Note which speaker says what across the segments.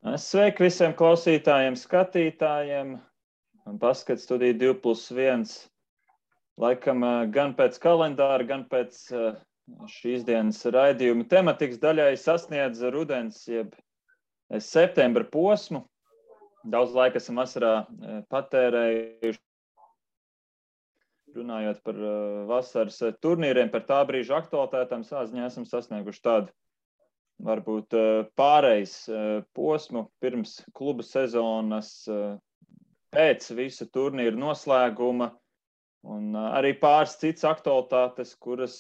Speaker 1: Sveiki visiem klausītājiem, skatītājiem. Baskets studija 2+1. Laikam gan pēc kalendāra, gan pēc šīs dienas raidījuma tematikas daļai sasniedz rudens, jeb septembra posmu. Daudz laika esam vasarā patērējuši, runājot par vasaras turnīriem, par tā brīža aktualitātēm. Sāziņā esam sasnieguši tādu varbūt pārejas posmu pirms kluba sezonas, pēc visu turnīru noslēguma un arī pāris citas aktualitātes, kuras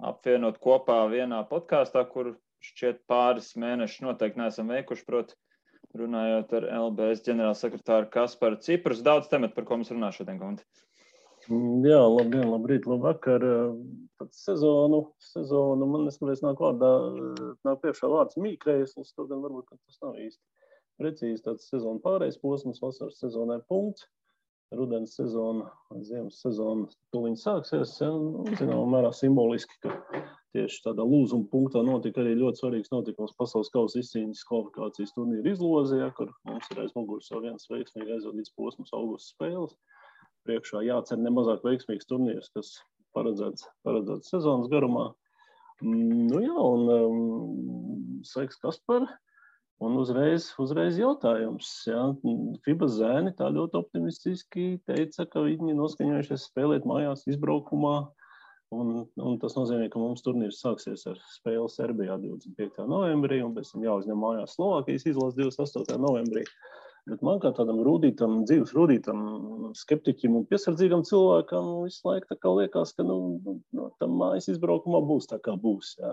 Speaker 1: apvienot kopā vienā podkāstā, kur šķiet pāris mēnešus noteikti neesam veikuši, proti runājot ar LBS ģenerālsekretāru Kasparu Ciprus. Daudz tematu, par ko mums runā šodien, Gunti.
Speaker 2: Jā, labdien, labrīt, labvakar. Tad sezonu man neskatās nāk priekšā vārds mīkrēsls, to gan varbūt tas nav īsti precīzi. Tāds sezonu pārējais posms, vasaras sezonai punkts, rudens sezona, ziemas sezona tuliņ sāksies. Zināmā mērā simboliski, ka tieši tādā lūzuma punktā notika arī ļoti svarīgs notikums pasaules kausa izcīņas kvalifikācijas turnīra izlozē, kur mums ir aiz muguras jau viens veiksmīgi aizvadīts posms augusta spēles. Priekšā jācer nemazāk veiksmīgs turnīrs, kas paredzēts sezonas garumā. Sveiks, Kaspar. Un uzreiz jautājums. Jā. FIBA zēni tā ļoti optimistiski teica, ka viņi noskaņojušies spēlēt mājās izbraukumā. Un tas nozīmē, ka mums turnīrs sāksies ar spēli Serbijā 25. novembrī, un pēc tam jāuzņem mājās Slovākijas izlases 28. novembrī. Bet man kā tādam dzīves rūdītam, skeptiķim un piesardzīgam cilvēkam visu laiku tā kā liekas, ka tam mājas izbraukumā būs tā kā būs. Jā.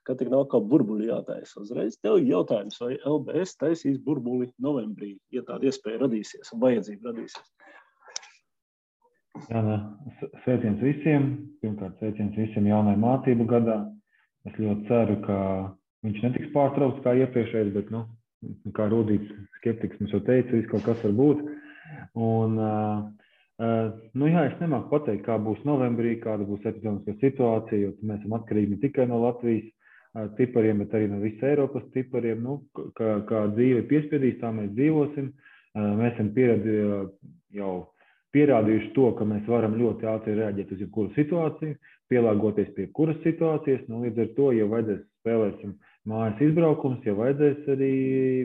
Speaker 2: Ka tik nav kā burbuļi jātaisa. Uzreiz tev jautājums, vai LBS taisīs burbuli novembrī, ja tāda iespēja radīsies un vajadzība radīsies?
Speaker 3: Jā, sveiciens visiem. Pirmkārt, sveiciens visiem jaunai mācību gadā. Es ļoti ceru, ka viņš netiks pārtraukts kā iepriekšējais, bet, kā rūdīts skeptiks mums jau teica, viss kaut kas var būt. Un, es nemāku pateikt, kā būs novembrī, kāda būs epidemiskā situācija, jo mēs esam atkarīgi ne tikai no Latvijas tipariem, bet arī no visas Eiropas tipariem. Kā dzīve piespiedīs, tā mēs dzīvosim. Mēs esam jau pierādījuši to, ka mēs varam ļoti ātri reaģēt uz jebkuru situāciju, pielāgoties pie kuras situācijas. Līdz ar to, ja vajadzēs spēlēsim mājas izbraukums, ja vajadzēs arī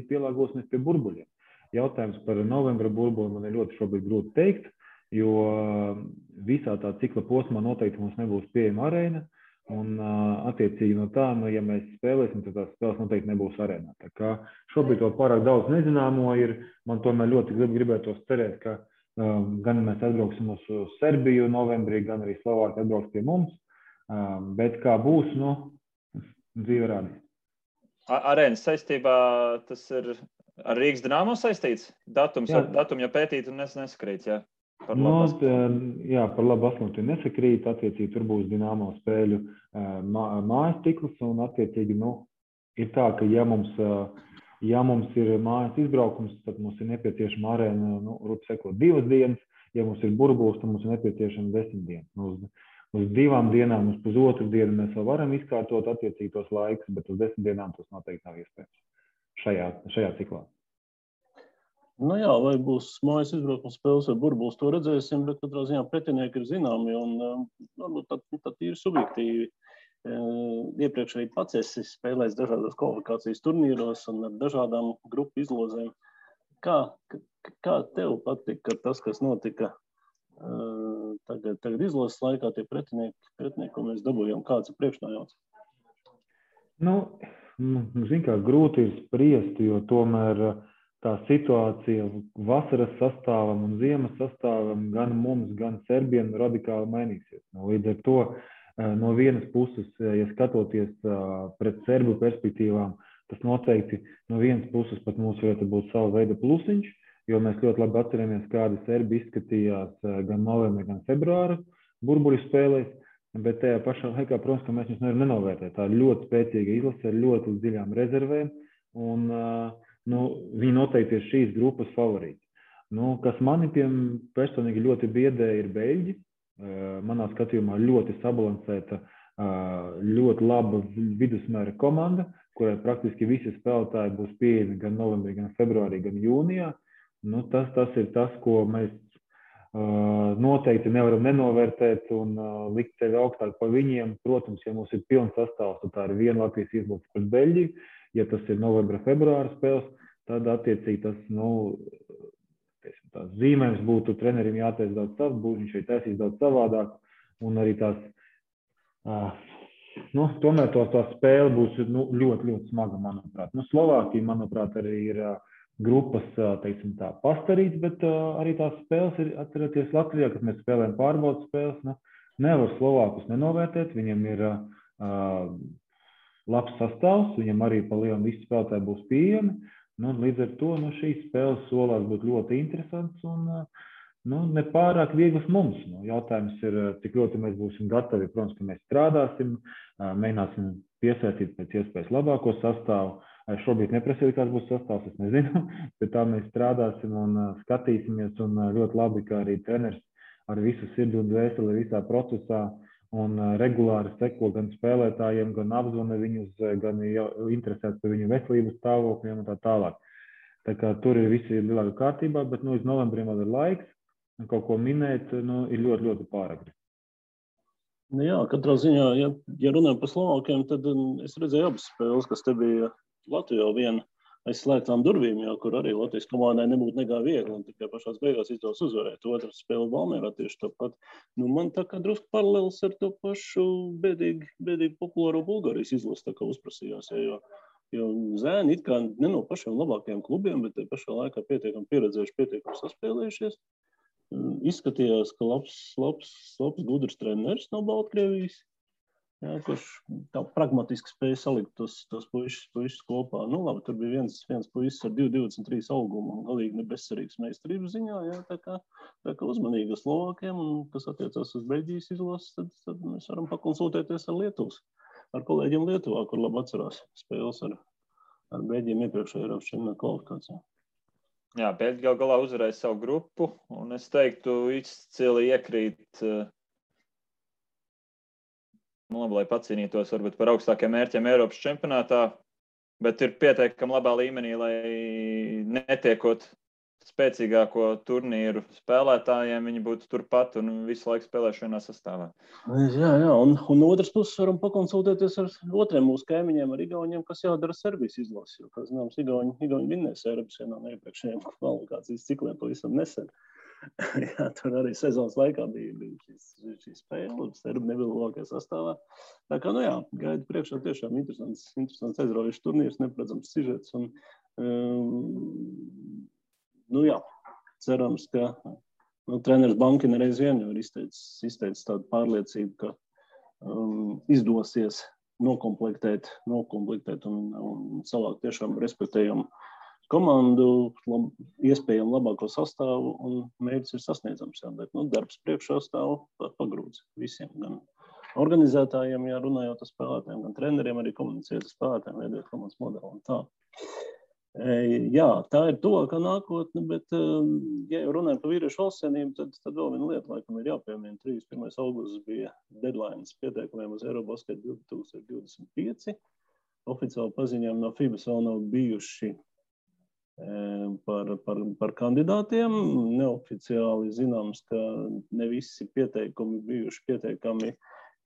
Speaker 3: pielāgosimies pie burbuļiem. Jautājums par novembra burbuli man ir ļoti šobrīd grūti teikt, jo visā tā cikla posmā noteikti mums nebūs pieejama arēna, un attiecīgi no tā, ja mēs spēlēsim, tad tās spēles noteikti nebūs arēnā. Tā kā šobrīd vēl pārāk daudz nezināmo ir, man tomēr ļoti gribētos cerēt, ka gan mēs atbrauksim uz Serbiju novembrī, gan arī Slovākija atbrauks pie mums, bet kā būs, dzīve rādīs.
Speaker 1: Arēnas saistībā tas ir ar Rīgas Dinamo saistīts? Datum jau pētīt un nesakrīt, jā? Par
Speaker 3: labu asmuļu nesakrīt. Attiecīgi tur būs Dinamo spēļu mājas cikls, un attiecīgi, ir tā, ka ja mums ir mājas izbraukums, tad mums ir nepieciešama arēna, 2 dienas. Ja mums ir burbulis, tad mums ir nepieciešama 10 dienas. Uz 2 dienām, uz pusotru dienu mēs vēl varam izkārtot attiecīgi tos laikus, bet uz 10 dienām tas noteikti nav iespējams šajā ciklā.
Speaker 2: Vai būs mājas izbraukums spēles vai burbulis, to redzēsim, bet katrā ziņā pretinieki ir zināmi un varbūt tā ir subjektīvi. Iepriekš arī pats esi spēlējis dažādos kvalifikācijas turnīros un ar dažādām grupu izlozēm. Kā tev patika tas, kas notika tagad izlases laikā, tie pretinieki, ko mēs dabūjām, kāds ir priekšnājauts?
Speaker 3: Grūti ir spriest, jo tomēr tā situācija vasaras sastāvam un ziemas sastāvam gan mums, gan serbiem radikāli mainīsies. Līdz ar to no vienas puses, ja skatoties pret serbu perspektīvām, tas noteikti no vienas puses pat mums varētu būt sava veida plusiņš, jo mēs ļoti labi atceramies, kādi serbi izskatījās gan novembrī, gan februāra burbuļu spēlēs, bet tajā pašā laikā, protams, ka mēs viņus nevaram nenovērtēt. Tā ir ļoti spēcīga izlase ar ļoti dziļām rezervēm, un viņi noteikti ir šīs grupas favorīti. Kas mani personīgi ļoti biedē, ir beļģi. Manā skatījumā ļoti sabalansēta, ļoti laba vidusmēra komanda, kurai praktiski visi spēlētāji būs pieejami gan novembrī, gan februārī, gan jūnijā. Nu, tas ir tas, ko mēs noteikti nevaram nenovērtēt un likt sevi augstāk par viņiem. Protams, ja mums ir pilns sastāvs, tad tā ir viena Latvijas izlase pret Beļģiju. Ja tas ir novembra, februāra spēles, tad attiecīgi tas, tās zīmējums būtu trenerim jātaisa daudz savs, viņš ir taisījis daudz savādāk, un arī tās, tomēr tās spēle būs ļoti, ļoti smaga, manuprāt. Slovākija, manuprāt, arī ir grupas, teiksim tā, pastarīts, bet arī tās spēles ir, atcerieties, Latvijā, kad mēs spēlējam pārbaudas spēles, nevar Slovākus nenovērtēt, viņam ir labs sastāvs, viņam arī pa lielam visi spēlētāji būs pieejami, līdz ar to šīs spēles solās būt ļoti interesants un nepārāk vieglas mums. Jautājums ir, cik ļoti mēs būsim gatavi, protams, ka mēs strādāsim, mēģināsim piesaistīt pēc iespējas labāko sastāvu. Šobrīd neprasīju, kāds būs sastāvs, es nezinu, bet tā mēs strādāsim un skatīsimies, un ļoti labi, ka arī treneris ar visu sirdi un dvēseli visā procesā un regulāri seko gan spēlētājiem, gan apzvana viņus, gan interesēts par viņu veselības stāvokļiem un tā tālāk. Tā kā tur ir visi lielākā kārtībā, bet līdz novembrim vēl ir laiks, un kaut ko minēt, ir ļoti, ļoti pāragri.
Speaker 2: Jā, katrā ziņā, ja runājam par Slovākiem, tad es redzēju abas spēles, kas te bija Latvijā viena aiz slēgtām durvīm, kur arī Latvijas komandai nebūtu nekā viegli, un tikai pašās beigās izdevās uzvarēt. Otra spēle Valmierā tieši tāpat. Man tā kā drusku paralēls ar to pašu bēdīgi populāro Bulgārijas izlasi tā kā uzprasījās, jo zēni it kā ne no pašiem labākajiem klubiem, bet pašā laikā pietiekami pieredzējuši, pietiekami saspēlējušies. Izskatījās, ka labs gudrs treneris no Baltkrievijas. Jā, kurš tā pragmatiski spēja salikt tos puišus kopā. Labi, tur bija viens puisis ar 2,23 augumu un galīgi nebezcerīgs meistarības ziņā. Jā, tā kā uzmanīgi ar Slovākiem, un kas attiecās uz Beļģijas izlases, tad mēs varam pakonsultēties ar kolēģiem Lietuvā, kur labi atcerās spēles ar Beļģiem iepriekšējā Eiropas čempionāta kvalifikācijā.
Speaker 1: Jā, Beļģi gal galā uzvarēja savu grupu, un es teiktu, izcili iekrīt lai pacīnītos varbūt par augstākiem mērķiem Eiropas čempionātā, bet ir pietiekami labā līmenī, lai netiekot spēcīgāko turnīru spēlētājiem, viņi būtu turpat un visu laiku spēlēšu vienā sastāvā.
Speaker 2: Jā, un otras puses varam pakonsultēties ar otriem mūsu kaimiņiem, ar Igauniem, kas jādara Serbijas izlasi, jo, kā zināms, Igauni vinnēs Eiropas vienā no iepriekšējiem kvalifikācijas cikliem pavisam nesen. Jā, tur arī sezonas laikā bija šī spēle, Serbi nebija labākajā sastāvā. Tā kā, gaida priekšā tiešām interesants aizraujošs turnīrs, neparedzams sižets. Cerams, ka treneris Bankina reiz vien jau ir izteicis tādu pārliecību, ka izdosies nokomplektēt un savākt tiešām respektējumu komandu, iespējami labāko sastāvu, un mērķis ir sasniedzams. Bet darbs priekšā stāv pagrūts visiem, gan organizētājiem, runājot ar spēlētājiem, gan treneriem, arī komunicēt ar spēlētājiem, veidot komandas modeli un tā. Jā, tā ir tuvākā nākotne, bet, ja jau runājam par vīriešu valstsienību, tad vēl viena lieta, laikam, ir jāpiemina. 31. augusts bija deadlines pieteikumiem uz Eurobasket 2025. Oficiāli paziņām no FIBAS vēl nav bijuši par kandidātiem. Neoficiāli zināms, ka ne visi pieteikumi bijuši pietiekami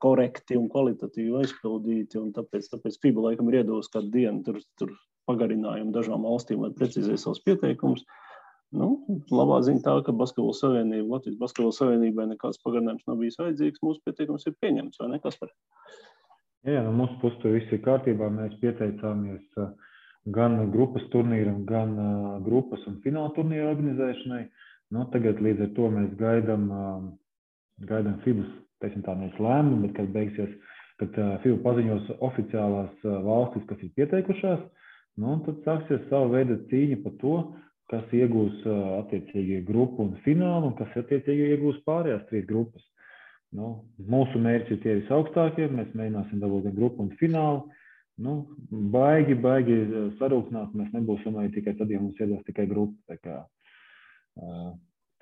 Speaker 2: korekti un kvalitatīvi aizpildīti, un tāpēc FIBA laikam ir iedevusi kādu dienu tur pagarinājumu dažām valstīm, lai precizē savus pieteikumus. Labā ziņa tā, ka Latvijas Basketbola Savienībai nekāds pagarinājums nav bijis vajadzīgs, mūsu pieteikums ir pieņemts, vai ne, Kaspar?
Speaker 3: Jā, no mūsu puses tur viss ir kārtībā, mēs pieteicāmies gan grupas turnīram, gan grupas un fināla turnīra organizēšanai. Tagad līdz ar to mēs gaidām FIBAS, teiksim tā, nevis lēmumu, bet kad beigsies, kad FIBA paziņos oficiālās valstis, kas ir pieteikušās, tad sāksies savu veidu cīņa par to, kas iegūs attiecīgi grupu un finālu, un kas attiecīgi iegūs pārējās 3 grupas. Mūsu mērķi ir tie visaugstākie, mēs mēģināsim dabūt gan grupu un finālu. Baigi sarūknāt, mēs nebūsim arī tikai tad, ja mums iedos tikai grupa.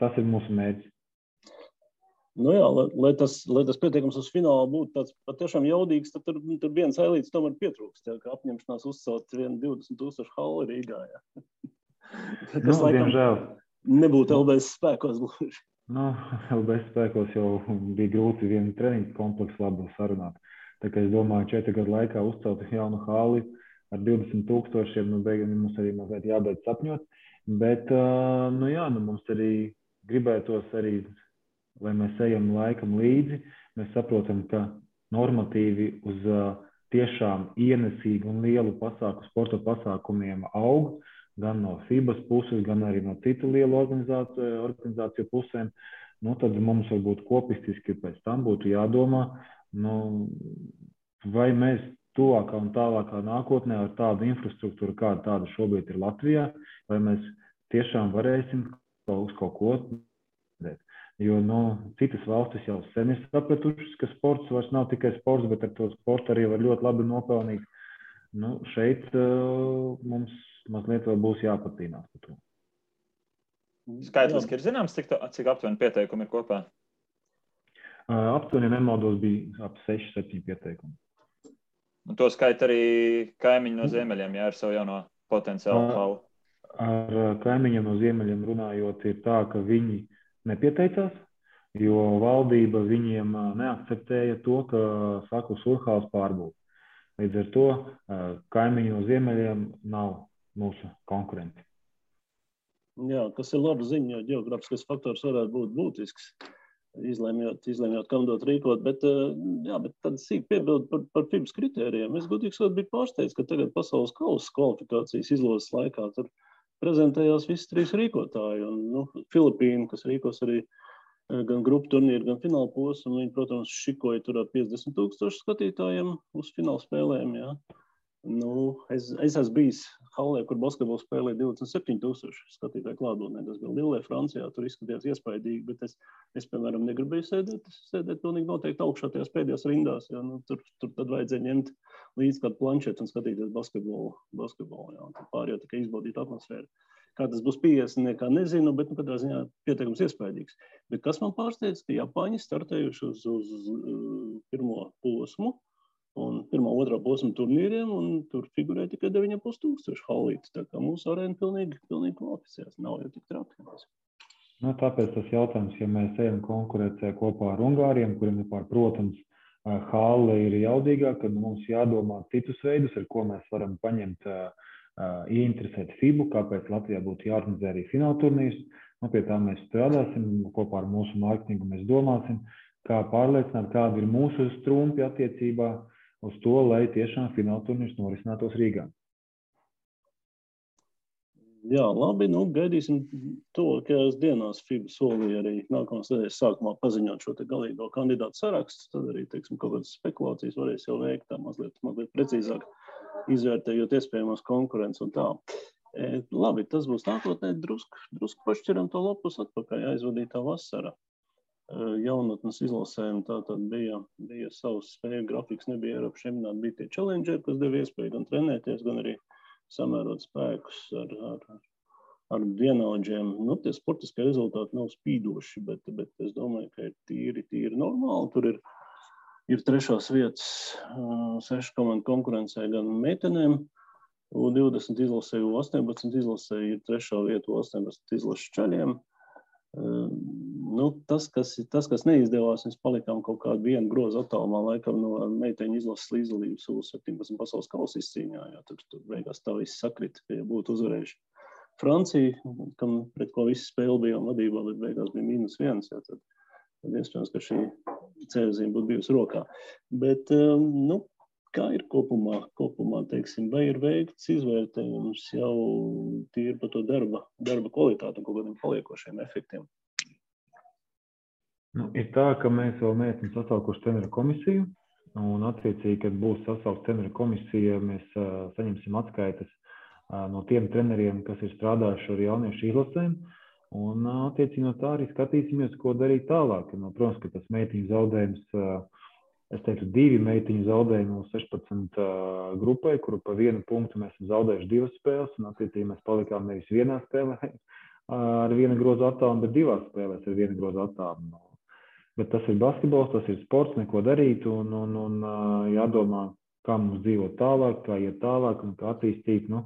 Speaker 3: Tas ir mūsu mērķis.
Speaker 2: Nu jā, lai tas pieteikums uz finālu būtu tāds patiešām jaudīgs, tad tur viens ailīts tomēr pietrūkst, jā, ka apņemšanās uzcelt 20,000 halli Rīgā. Jā. Tas laikam
Speaker 3: diemžēl
Speaker 2: nebūtu LBS spēkos gluži.
Speaker 3: LBS spēkos jau bija grūti vienu treniņu kompleksu labu sarunāt. Tā kā es domāju, 4 gadu laikā uzcelt jaunu halli ar 20,000, beigām mums arī mazliet jābeidz sapņot. Bet, mums arī gribētos arī, lai mēs ejam laikam līdzi, mēs saprotam, ka normatīvi uz tiešām ienesīgu un lielu sporta pasākumiem aug, gan no FIBAS puses, gan arī no citu lielu organizāciju pusēm. Tad mums varbūt kopistiski pēc tam būtu jādomā, vai mēs tuvākā un tālākā nākotnē ar tādu infrastruktūru, kāda tāda šobrīd ir Latvijā, vai mēs tiešām varēsim uz kaut ko dēt. Jo citas valstis jau sen ir sapratušas, ka sports vairs nav tikai sports, bet ar to sportu arī var ļoti labi nopelnīt. Šeit mums mazliet vēl būs jāpatīnās par to.
Speaker 1: Skaitliski ir zināms, cik aptuveni pieteikumi ir kopā?
Speaker 3: Aptuveni, nemaldos, bija ap 6-7 pieteikumi.
Speaker 1: Un to skaita arī kaimiņi no ziemeļiem, ar savu jauno potenciālu halli.
Speaker 3: Ar kaimiņiem no ziemeļiem runājot, ir tā, ka viņi nepieteicās, jo valdība viņiem neakceptēja to, ka Saklu Surhāls pārbūve. Līdz ar to kaimiņi no ziemeļiem nav mūsu konkurenti.
Speaker 2: Jā, kas ir laba ziņa, jo ģeogrāfiskais faktors varētu būt būtisks, izlemjot, kam dot rīkot, bet tad sīk piebildu par FIBAS kritērijiem. Es godīgi sakot biju pārsteigts, ka tagad pasaules kausa kvalifikācijas izlozes laikā tur prezentējās visi 3 rīkotāji. Filipīna, kas rīkos arī gan grupu turnīru, gan fināla posmu, viņi, protams, šikoja tur ar 50,000 skatītājiem uz fināla spēlēm. Jā. Es esmu bijis hallē, kur basketbolu spēlēja 27,000 skatītāju klātbūtnē. Tas bija Lillē, Francijā, tur izskatījās iespaidīgi, bet es piemēram, negribēju sēdēt pilnīgi noteikti augšā tajās pēdējās rindās. Jā. Tur tad vajadzēja ņemt līdz kādu planšetu un skatīties basketbolu. Jā. Pārējo tikai izbaudīt atmosfēru. Kā tas būs 50, nekā nezinu, bet katrā ziņā pieteikums iespaidīgs. Bet kas man pārsteidz, ka Japāņi startējuši uz pirmo posmu un pirmā, otrā posma turnīriem, un tur figurē tikai 9,500 hallītes. Tā kā mūsu arēna pilnīgi kvalificēs. Nav jau tik traki.
Speaker 3: Tāpēc tas jautājums, ja mēs ejam konkurēcē kopā ar Ungāriem, kuriem, protams, halle ir jaudīgāk, tad mums jādomā citus veidus, ar ko mēs varam paņemt, ieinteresēt FIBU, kāpēc Latvijā būtu jāorganizē arī fināla turnīrs. Pie tā mēs strādāsim, kopā ar mūsu mārketingu mēs domāsim, kā pārliecināt, kādi ir mūsu strumpi attiecībā uz to, lai tiešām fināla turnīrs norisinātos Rīgā.
Speaker 2: Jā, labi, gaidīsim tuvākajās dienās. FIBA solīja arī nākamās nedēļas sākumā paziņot šo te galīgo kandidātu sarakstu, tad arī, kaut kādas spekulācijas varēs jau veikt tā mazliet precīzāk, izvērtējot iespējamos konkurences un tā. Labi, tas būs nākotnē, drusku pašķiram to lapus atpakaļ, aizvadītā vasara. Jaunatnes izlasēm tātad bija savs spēju grafiks, nebija Eiropas čempionāti, bija tie challengeri, kas deva iespēju gan trenēties, gan arī samērot spēkus ar vienaudžiem. Tie sportiskie rezultāti nav spīdoši, bet es domāju, ka ir tīri normāli. Tur ir 3. vietas 6 komandu konkurencē gan meitenēm, U20 izlasē, U18 izlasē, ir 3. vieta U18 izlases čaļiem. Tas, kas neizdevās, mēs palikām kaut kādu vienu grozu attālumā, laikam no meiteņu izlases līdzdalības U17 pasaules kausa izcīņā. Tur beigās tā viss sakrita, ka ja būtu uzvarējuši Francija, pret ko visi spēle bijām vadībā, bet beigās bija -1, tad iespējams, ka šī ceļzīme būtu bijusi rokā. Bet, kā ir kopumā, teiksim, vai ir veikts izvērtējums jau tīri par to darba kvalitāti un kaut kādiem paliekošiem efektiem?
Speaker 3: Ir tā, ka mēs vēl neesam sasaukuši treneru komisiju, un attiecīgi, kad būs sasaukta treneru komisija, mēs saņemsim atskaites no tiem treneriem, kas ir strādājuši ar jauniešu izlasēm, un attiecīgi no tā arī skatīsimies, ko darīt tālāk. Protams, ka tas meitiņu zaudējums, es teiktu, 2 meitiņu zaudējumi no 16 grupai, kuru pa 1 punktu mēs esam zaudējuši 2 spēles, un attiecīgi mēs palikām nevis 1 spēlē ar 1 grozu attālumu, bet 2 spēlēs ar 1 grozu attālumu. bet tas ir basketbols, tas ir sports, neko darīt un jādomā, kā mums dzīvot tālāk, kā iet tālāk un kā attīstīt. Nu,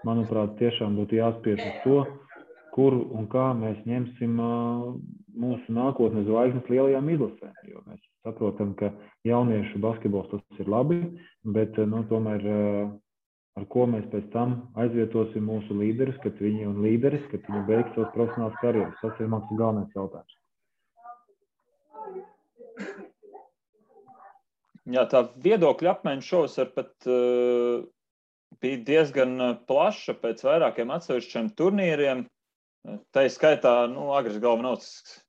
Speaker 3: manuprāt, tiešām būtu jāspiež uz to, kur un kā mēs ņemsim mūsu nākotnes zvaigznes lielajām izlasēm. Jo mēs saprotam, ka jauniešu basketbols tas ir labi, bet tomēr ar ko mēs pēc tam aizvietosim mūsu līderus, kad viņi beigs savas profesionālas karjeras. Tas ir mans galvenais jautājums.
Speaker 1: Jā, tā viedokļa apmaiņa šovasar pat bija diezgan plaša pēc vairākiem atsevišķiem turnīriem. Tā ir skaitā, Agris Galvanovs,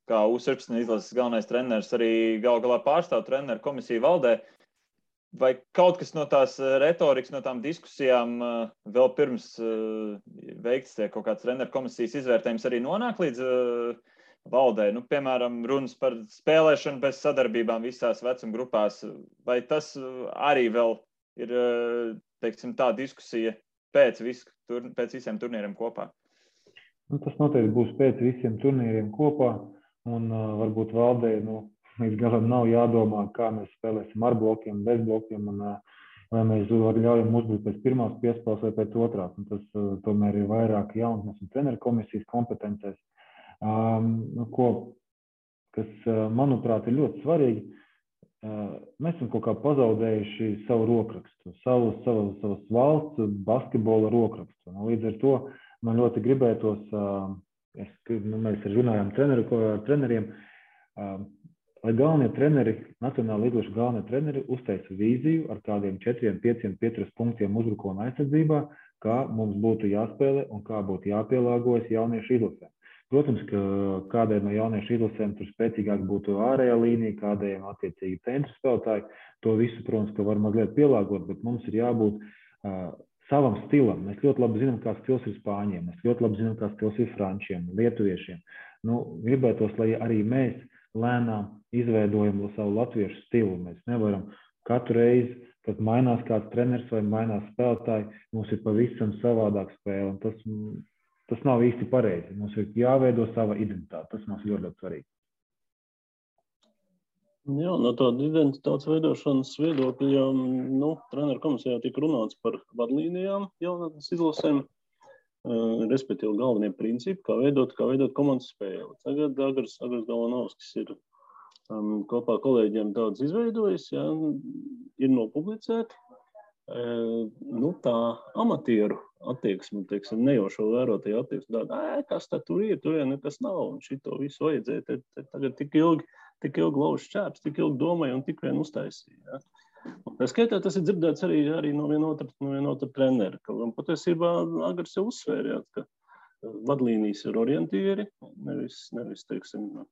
Speaker 1: kā U17 izlases galvenais treneris, arī galā pārstāv treneru komisiju valdē. Vai kaut kas no tās retorikas, no tām diskusijām vēl pirms veikts kaut kāds treneru komisijas izvērtējums arī nonāk līdz valdē? Piemēram, runas par spēlēšanu bez sadarbībām visās vecuma grupās. Vai tas arī vēl ir, teiksim, tā diskusija pēc visiem turnīriem kopā?
Speaker 3: Tas noteikti būs pēc visiem turnīriem kopā, un varbūt valdē, līdz galam nav jādomā, kā mēs spēlēsim ar blokiem, bez blokiem, un vai mēs ļaujam uzbrukt pēc pirmās piespēles vai pēc otrās. Un tas tomēr ir vairāk jaunatnes un treneru komisijas kompetencēs. Kas, manuprāt, ir ļoti svarīgi, mēs esam kaut kā pazaudējuši savu rokrakstu, savas valsts basketbola rokrakstu. Līdz ar to man ļoti gribētos, mēs runājām ar treneriem, lai galvenie treneri, nacionāla līdzošu galvenie treneri uzteica vīziju ar kādiem 4, 5, 5 punktiem uzbrukuma aizsardzībā, kā mums būtu jāspēlē un kā būtu jāpielāgojas jauniešu izlasēm. Protams, ka kādai no jauniešu izlasēm tur spēcīgāk būtu ārējā līnija, kādējiem attiecīgi centru spēlētāji. To visu, protams, ka var mazliet pielāgot, bet mums ir jābūt savam stilam. Mēs ļoti labi zinām, kā stils ir spāņiem, mēs ļoti labi zinām, kā stils ir frančiem, lietuviešiem. Gribētos, lai arī mēs lēnām izveidojam savu latviešu stilu. Mēs nevaram katru reizi, kad mainās kāds treneris vai mainās spēlētāji, mums ir pavisam savādāk spēle. Tas nav īsti pareizi. Mums ir jāveido sava identitāte. Tas mums ir ļoti svarīgi.
Speaker 2: Jā, no tāda identitātes veidošanas viedokļa, treneru komisijā tika runāts par vadlīnijām jaunatnes izlasēm, respektīvi galvenie principi, kā veidot komandas spēli. Tagad Agris Galvanovskis ir kopā ar kolēģiem daudz izveidojis, ir nopublicēti. Tā amatieru attieksme, nejaušo vērotāju attieksme, kas tad tur ir, tur nekas nav, un šito visu vajadzēja. Tagad tik ilgi lauž šķēps, tik ilgi domāja un tik vien uztaisīja. Tā skaitā tas ir dzirdēts arī no vienotra trenera, un patiesībā Agris jau uzsvērjāt, ka vadlīnijas ir orientieri, nevis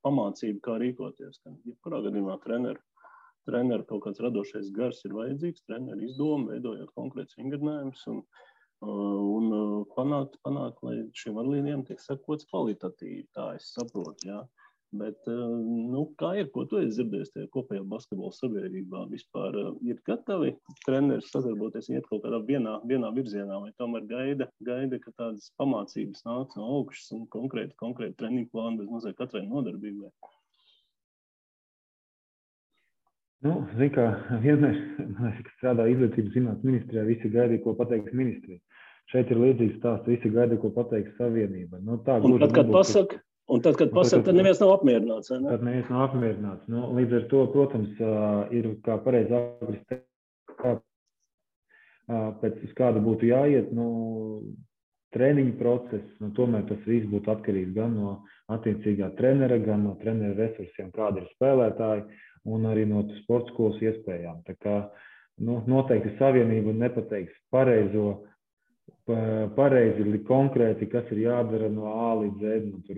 Speaker 2: pamācība, kā rīkoties. Jebkurā gadījumā treneru kaut kāds radošais gars ir vajadzīgs, treneru izdoma, veidojot konkrēts vingrinājumus un panākt, lai šiem vadlīnijām tiek sekots kvalitatīvi, tā es saprotu, jā. Bet, kā ir, ko tu esi dzirdējis tajā kopējā basketbola sabiedrībā? Vispār ir gatavi treneri sadarboties, iet kaut kādā vienā virzienā, vai tomēr gaida, ka tādas pamācības nāk no augšas un konkrēti treniņu plānu bez mazliet katrai nodarbībai?
Speaker 3: Zin kā, vienmēr, kad strādā izglītības zinātnes ministrijā, visi gaidīja, ko pateiks ministrija. Šeit ir līdzīgs stāsts, visi gaidīja, ko pateiks savienība. Un tad, kad pasaka, tad neviens nav apmierināts. Ne? Tad neviens nav apmierināts. Līdz ar to, protams, ir kā pareizi Agris teikt, pēc uz kādu būtu jāiet, treniņu process, tomēr tas viss būtu atkarīgs gan no attiecīgā trenera, gan no trenera resursiem, kādi ir spēlētāji, un arī no sporta skolas iespējām. Tā kā, noteikti savienība nepateiks pareizi, konkrēti, kas ir jādara no A līdz Z. Tur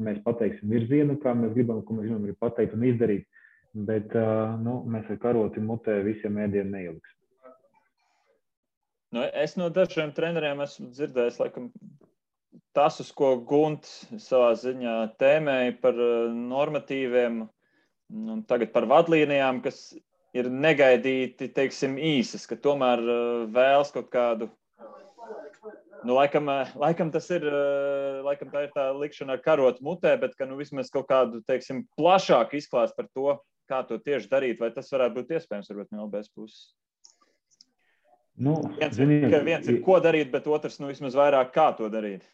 Speaker 3: mēs pateiksim virzienu, kā mēs gribam, ko mēs gribam arī pateikt un izdarīt, bet mēs ar karoti mutē visiem ēdienu neieliksim.
Speaker 1: Es no dažiem treneriem esmu dzirdējis, laikam, tas, uz ko Gunts savā ziņā tēmēja par normatīviem un tagad par vadlīnijām, kas ir negaidīti, īsas, ka tomēr vēlas kaut kādu Nu, laikam tas ir, laikam tā ir tā likšana ar karotu mutē, bet ka, nu, vismaz kaut kādu, teiksim, plašāku izklāstu par to, kā to tieši darīt, vai tas varētu būt iespējams, varbūt no LBS puses.
Speaker 3: Nu,
Speaker 1: viens ir, ko darīt, bet otrs, nu, vismaz vairāk, kā to darīt.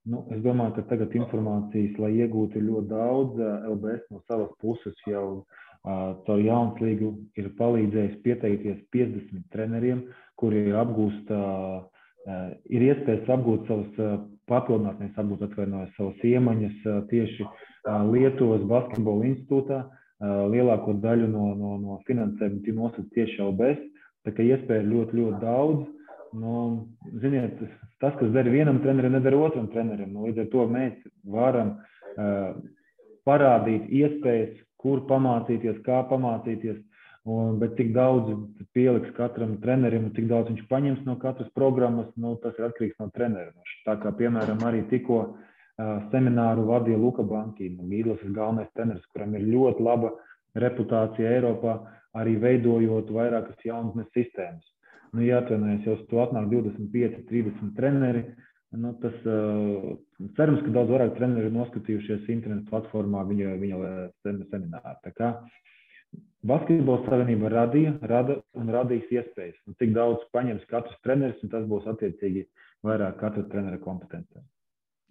Speaker 3: Nu, es domāju, ka tagad informācijas, lai iegūtu ļoti daudz, LBS no savas puses jau caur Jaunslīgu ir palīdzējis pieteikties 50 treneriem, kuri ir iespējas apgūt savas papildināt, nevis apgūt atvainojas savas iemaņas tieši Lietuvas basketbola institūtā. Lielāko daļu no finansējumu nosaka tieši LBS, tā ka iespēja ir ļoti, ļoti daudz. Nu, ziniet, tas, kas dara vienam trenerim, nedara otram trenerim. Līdz ar to mēs varam parādīt iespējas, kur pamācīties, kā pamācīties, bet cik daudz pieliks katram trenerim un cik daudz viņš paņems no katras programmas, nu, tas ir atkarīgs no trenera. Tā kā, piemēram, arī tikko semināru vadīja Luka Banki, Gīdlas galvenais treneris, kuram ir ļoti laba reputācija Eiropā, arī veidojot vairākas jaunatnes sistēmas. Nu, jāatvainojas, jau uz to atnāk 25, 30 treneri. Nu, tas cerams, ka daudz vairāk treneri ir noskatījušies internetu platformā viņa semināru. Tā kā Basketbola savienība rada un radīs iespējas. Un cik daudz paņems katrs treneris, un tas būs attiecīgi vairāk katra trenera kompetencē.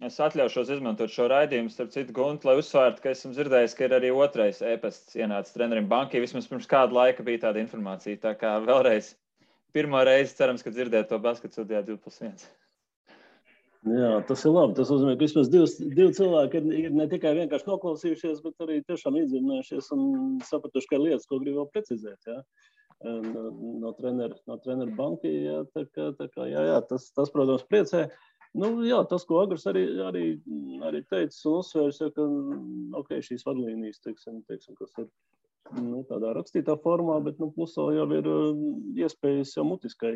Speaker 1: Es atļaušos izmantot šo raidījumu, starp citu, Gunti, lai uzsvērtu, ka esmu dzirdējis, ka ir arī otrais e-pasts ienācis trenerim Bankai. Vismaz pirms kāda laika bija tāda informācija. Tā kā vēlreiz pirmo reizi cerams, ka dzirdēt to basketu studijā 2+1.
Speaker 2: Jā, tas ir labi. Tas nozīmē, ka vismaz divi cilvēki ir ne tikai vienkārši noklausījušies, bet arī tiešām iedzinājušies un sapratuši, ka ir lietas, ko grib vēl precizēt. Jā. No treneru Banki. Jā, tā kā, jā, tas, protams, priecē. Nu, jā, tas, ko Agurs arī teicis un uzsvērs, ja, ka okay, šīs vadlīnijas, teiksim, kas ir tādā rakstītā formā, bet plusā jau ir iespējas jau mutiskai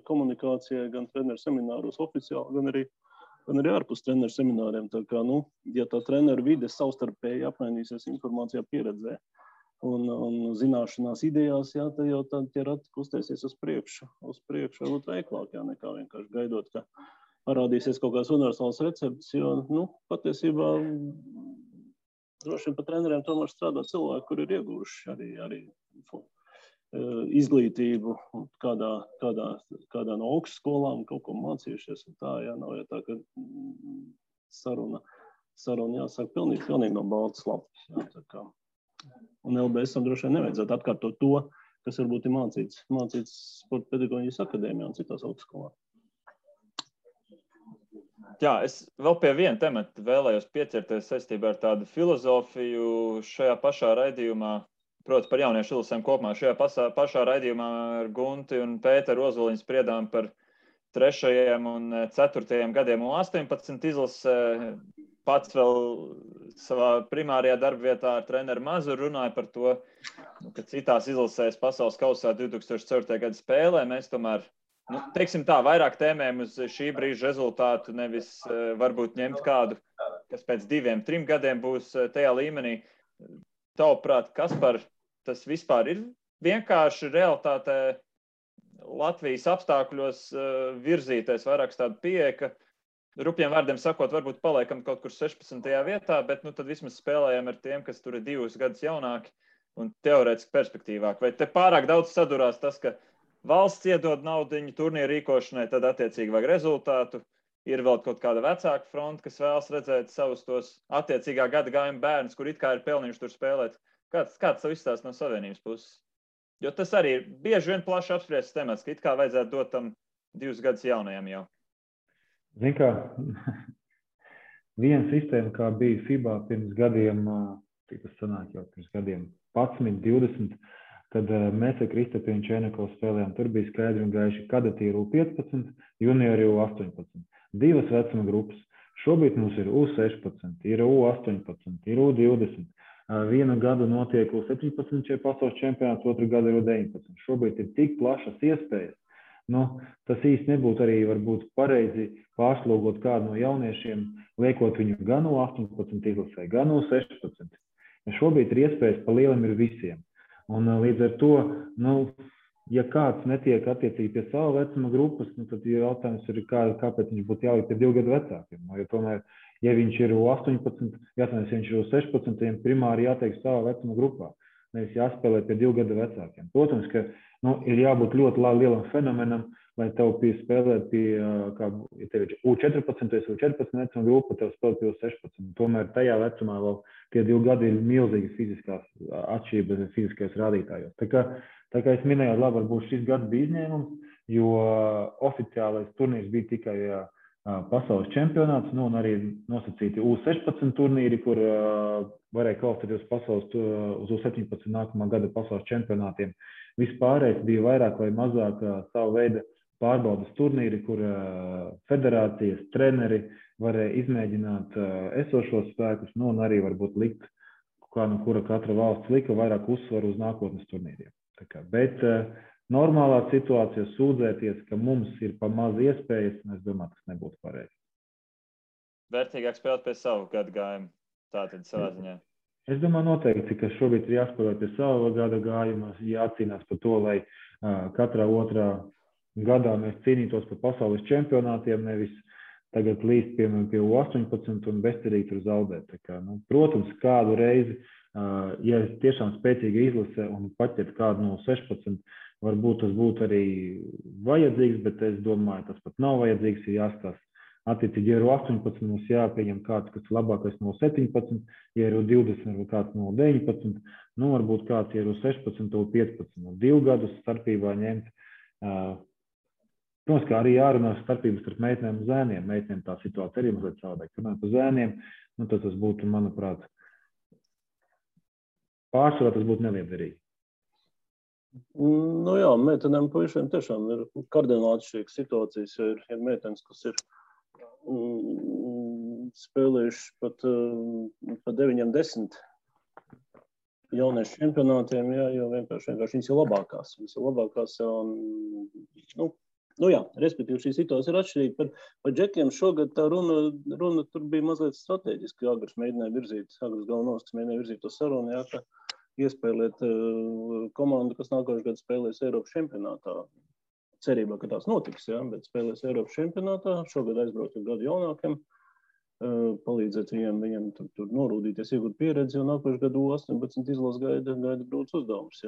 Speaker 2: komunikācijai gan treneru semināros oficiāli, gan arī ārpus treneru semināriem. Tā kā, ja tā treneru vide savstarpēji apmainīsies informācijā, pieredzē un zināšanās idejās, jā, tad jau tie rati kustēsies uz priekšu varbūt veiklāk, jā, nekā vienkārši gaidot, ka parādīsies kaut kāds universāls recepts, jo, patiesībā droši vien pa treneriem tomēr strādā cilvēki, kuri ir ieguvuši arī izglītību kādā no augstskolām, kaut ko mācījušies. Un tā, jā, nav jau tā, ka saruna jāsaka pilnīgi no baltas lapas. Jā, tā kā. Un LBS-am droši vien nevajadzētu atkārtot to, kas varbūt ir mācīts Sporta pedagoģijas akadēmijā un citās augstskolās.
Speaker 1: Jā, es vēl pie viena temata vēlējos pieķerties saistībā ar tādu filozofiju šajā pašā raidījumā, proti par jauniešu izlasēm kopumā. Šajā pašā raidījumā ar Gunti un Pēteru Ozoliņu spriedām par 3. un 4. gadiem un 18 izlasē. Pats vēl savā primārajā darbvietā ar treneru Mazuru runāja par to, ka citās izlasēs pasaules kausā 2004. gada spēlē mēs tomēr teiksim tā, vairāk tēmēm uz šī brīža rezultātu, nevis varbūt ņemt kādu, kas pēc 2-3 gadiem būs tajā līmenī. Tavuprāt, Kaspar, tas vispār ir vienkārši realitātē Latvijas apstākļos virzīties vairāk tādu pieeja, ka rupjiem vārdiem sakot, varbūt paliekam kaut kur 16. vietā, bet tad vismaz spēlējam ar tiem, kas tur ir 2 gadus jaunāki un teorētiski perspektīvāk. Vai te pārāk daudz sadurās tas, ka valsts iedod naudiņu turnīru rīkošanai, tad attiecīgi vajag rezultātu. Ir vēl kaut kāda vecāka fronta, kas vēlas redzēt savus tos attiecīgā gada gājuma bērnus, kur it kā ir pelnījuši tur spēlēt. Kāds tas izstāsts no Savienības puses? Jo tas arī ir bieži vien plaši apspriests temats, ka it kā vajadzētu dot tam 2 gadus jaunajam jau.
Speaker 3: Zin kā, viena sistēma, kā bija FIBA pirms gadiem, cik tas sanāk jau pirms gadiem 11, 20, tad mēs ar Kristapienu Čenekovu spēlējām. Tur bija skaidri un gaiši kadeti ir U15, juniori U18. 2 vecuma grupas. Šobrīd mums ir U16, ir U18, ir U20. Vienu gadu notiek U17 pasaules čempionāts, otru gadu ir U19. Šobrīd ir tik plašas iespējas. Tas īsti nebūtu arī varbūt pareizi pārslogot kādu no jauniešiem, liekot viņu gan U18 izlasē, gan U16. Šobrīd ir iespējas pa lielam ir visiem. Un līdz ar to, ja kāds netiek attiecīgi pie sava vecuma grupas, nu, tad jautājums ir, kāpēc viņš būtu jāliek pie 2 gadu vecākiem. Jo tomēr, ja viņš ir 18, jāsaka, ja viņš ir 16, viņam primāri jātiek savā vecuma grupā. Nevis jāspēlē pie 2 gadu vecākiem. Protams, ka ir jābūt ļoti lielam fenomenam, lai tev spēlēt pie, ja tev ir U14, vai 14 vecuma grupa, tev spēlēt pie 16. Tomēr tajā vecumā vēl tie 2 gadi ir milzīgi fiziskās atšķirības, fiziskais rādītājos. Tā kā es minēju, labi, varbūt šis gads bija izņēmums, jo oficiālais turnīrs bija tikai pasaules čempionāts, un arī nosacīti U16 turnīri, kur varēja kvalificēties uz U17 nākamā gada pasaules čempionātiem. Vispārējais bija vairāk vai mazāk savu veidu pārbaudas turnīri, kur federācijas treneri varēja izmēģināt esošos spēkus, un arī varbūt likt, kura katra valsts lika vairāk uzsvaru uz nākotnes turnīriem. Bet normālā situācijā sūdzēties, ka mums ir pa maz iespējas, es domāju, tas nebūtu pareizi.
Speaker 1: Vērtīgāk spēlēt pie savu gadu gājumu, tātad savā ziņā.
Speaker 3: Es domāju noteikti, ka šobrīd ir jāspēlē pie sava gada gājuma, jācīnās par to, lai katrā otrā gadā mēs cīnītos par pasaules čempionātiem, nevis tagad līdz pie U18 un bezcerīgi tur zaudēt. Protams, kādu reizi, ja tiešām spēcīga izlase un paķert kādu no 16, varbūt tas būtu arī vajadzīgs, bet es domāju, tas pat nav vajadzīgs, ir jāskatās. Attiecīgi, ja ir 18, mums jāpieņem kāds, kas ir labākais no 17, ja ir 20, varbūt kāds no 19, varbūt kāds ir 16, no 15, no 2 gadus starpībā ņemt. Protams, kā arī jārunā starpības starp meitenēm un zēniem. Meitenēm tā situācija arī mazliet savādāk. Runājot par zēniem, tad tas būtu, manuprāt, pārsvarā tas būtu neliederīgi.
Speaker 2: Jā, meitenēm puišiem tiešām ir kardināli atšķirīgas situācijas, jo ir meitenes, kas ir spēlējuši pat 9-10 jauniešu čempionātiem, jo vienkārši viņas ir labākās. Respektīvi šī situācija ir atšķirīga. Par džekiem šogad tā runa tur bija mazliet strateģiski. Agrs galvenos, kas mēģināja virzīt to sarunu, ka iespēlēt komandu, kas nākošais gads spēlēs Eiropas čempionātā. Cerībā, ka tās notiks, bet spēlēs Eiropas čempionātā. Šogad aizbraukt ar gadu jaunākiem, palīdzēt viņiem tur norūdīties, iegūt pieredzi, un nākošais gadu 18 izlas gaida grūts uzdevums.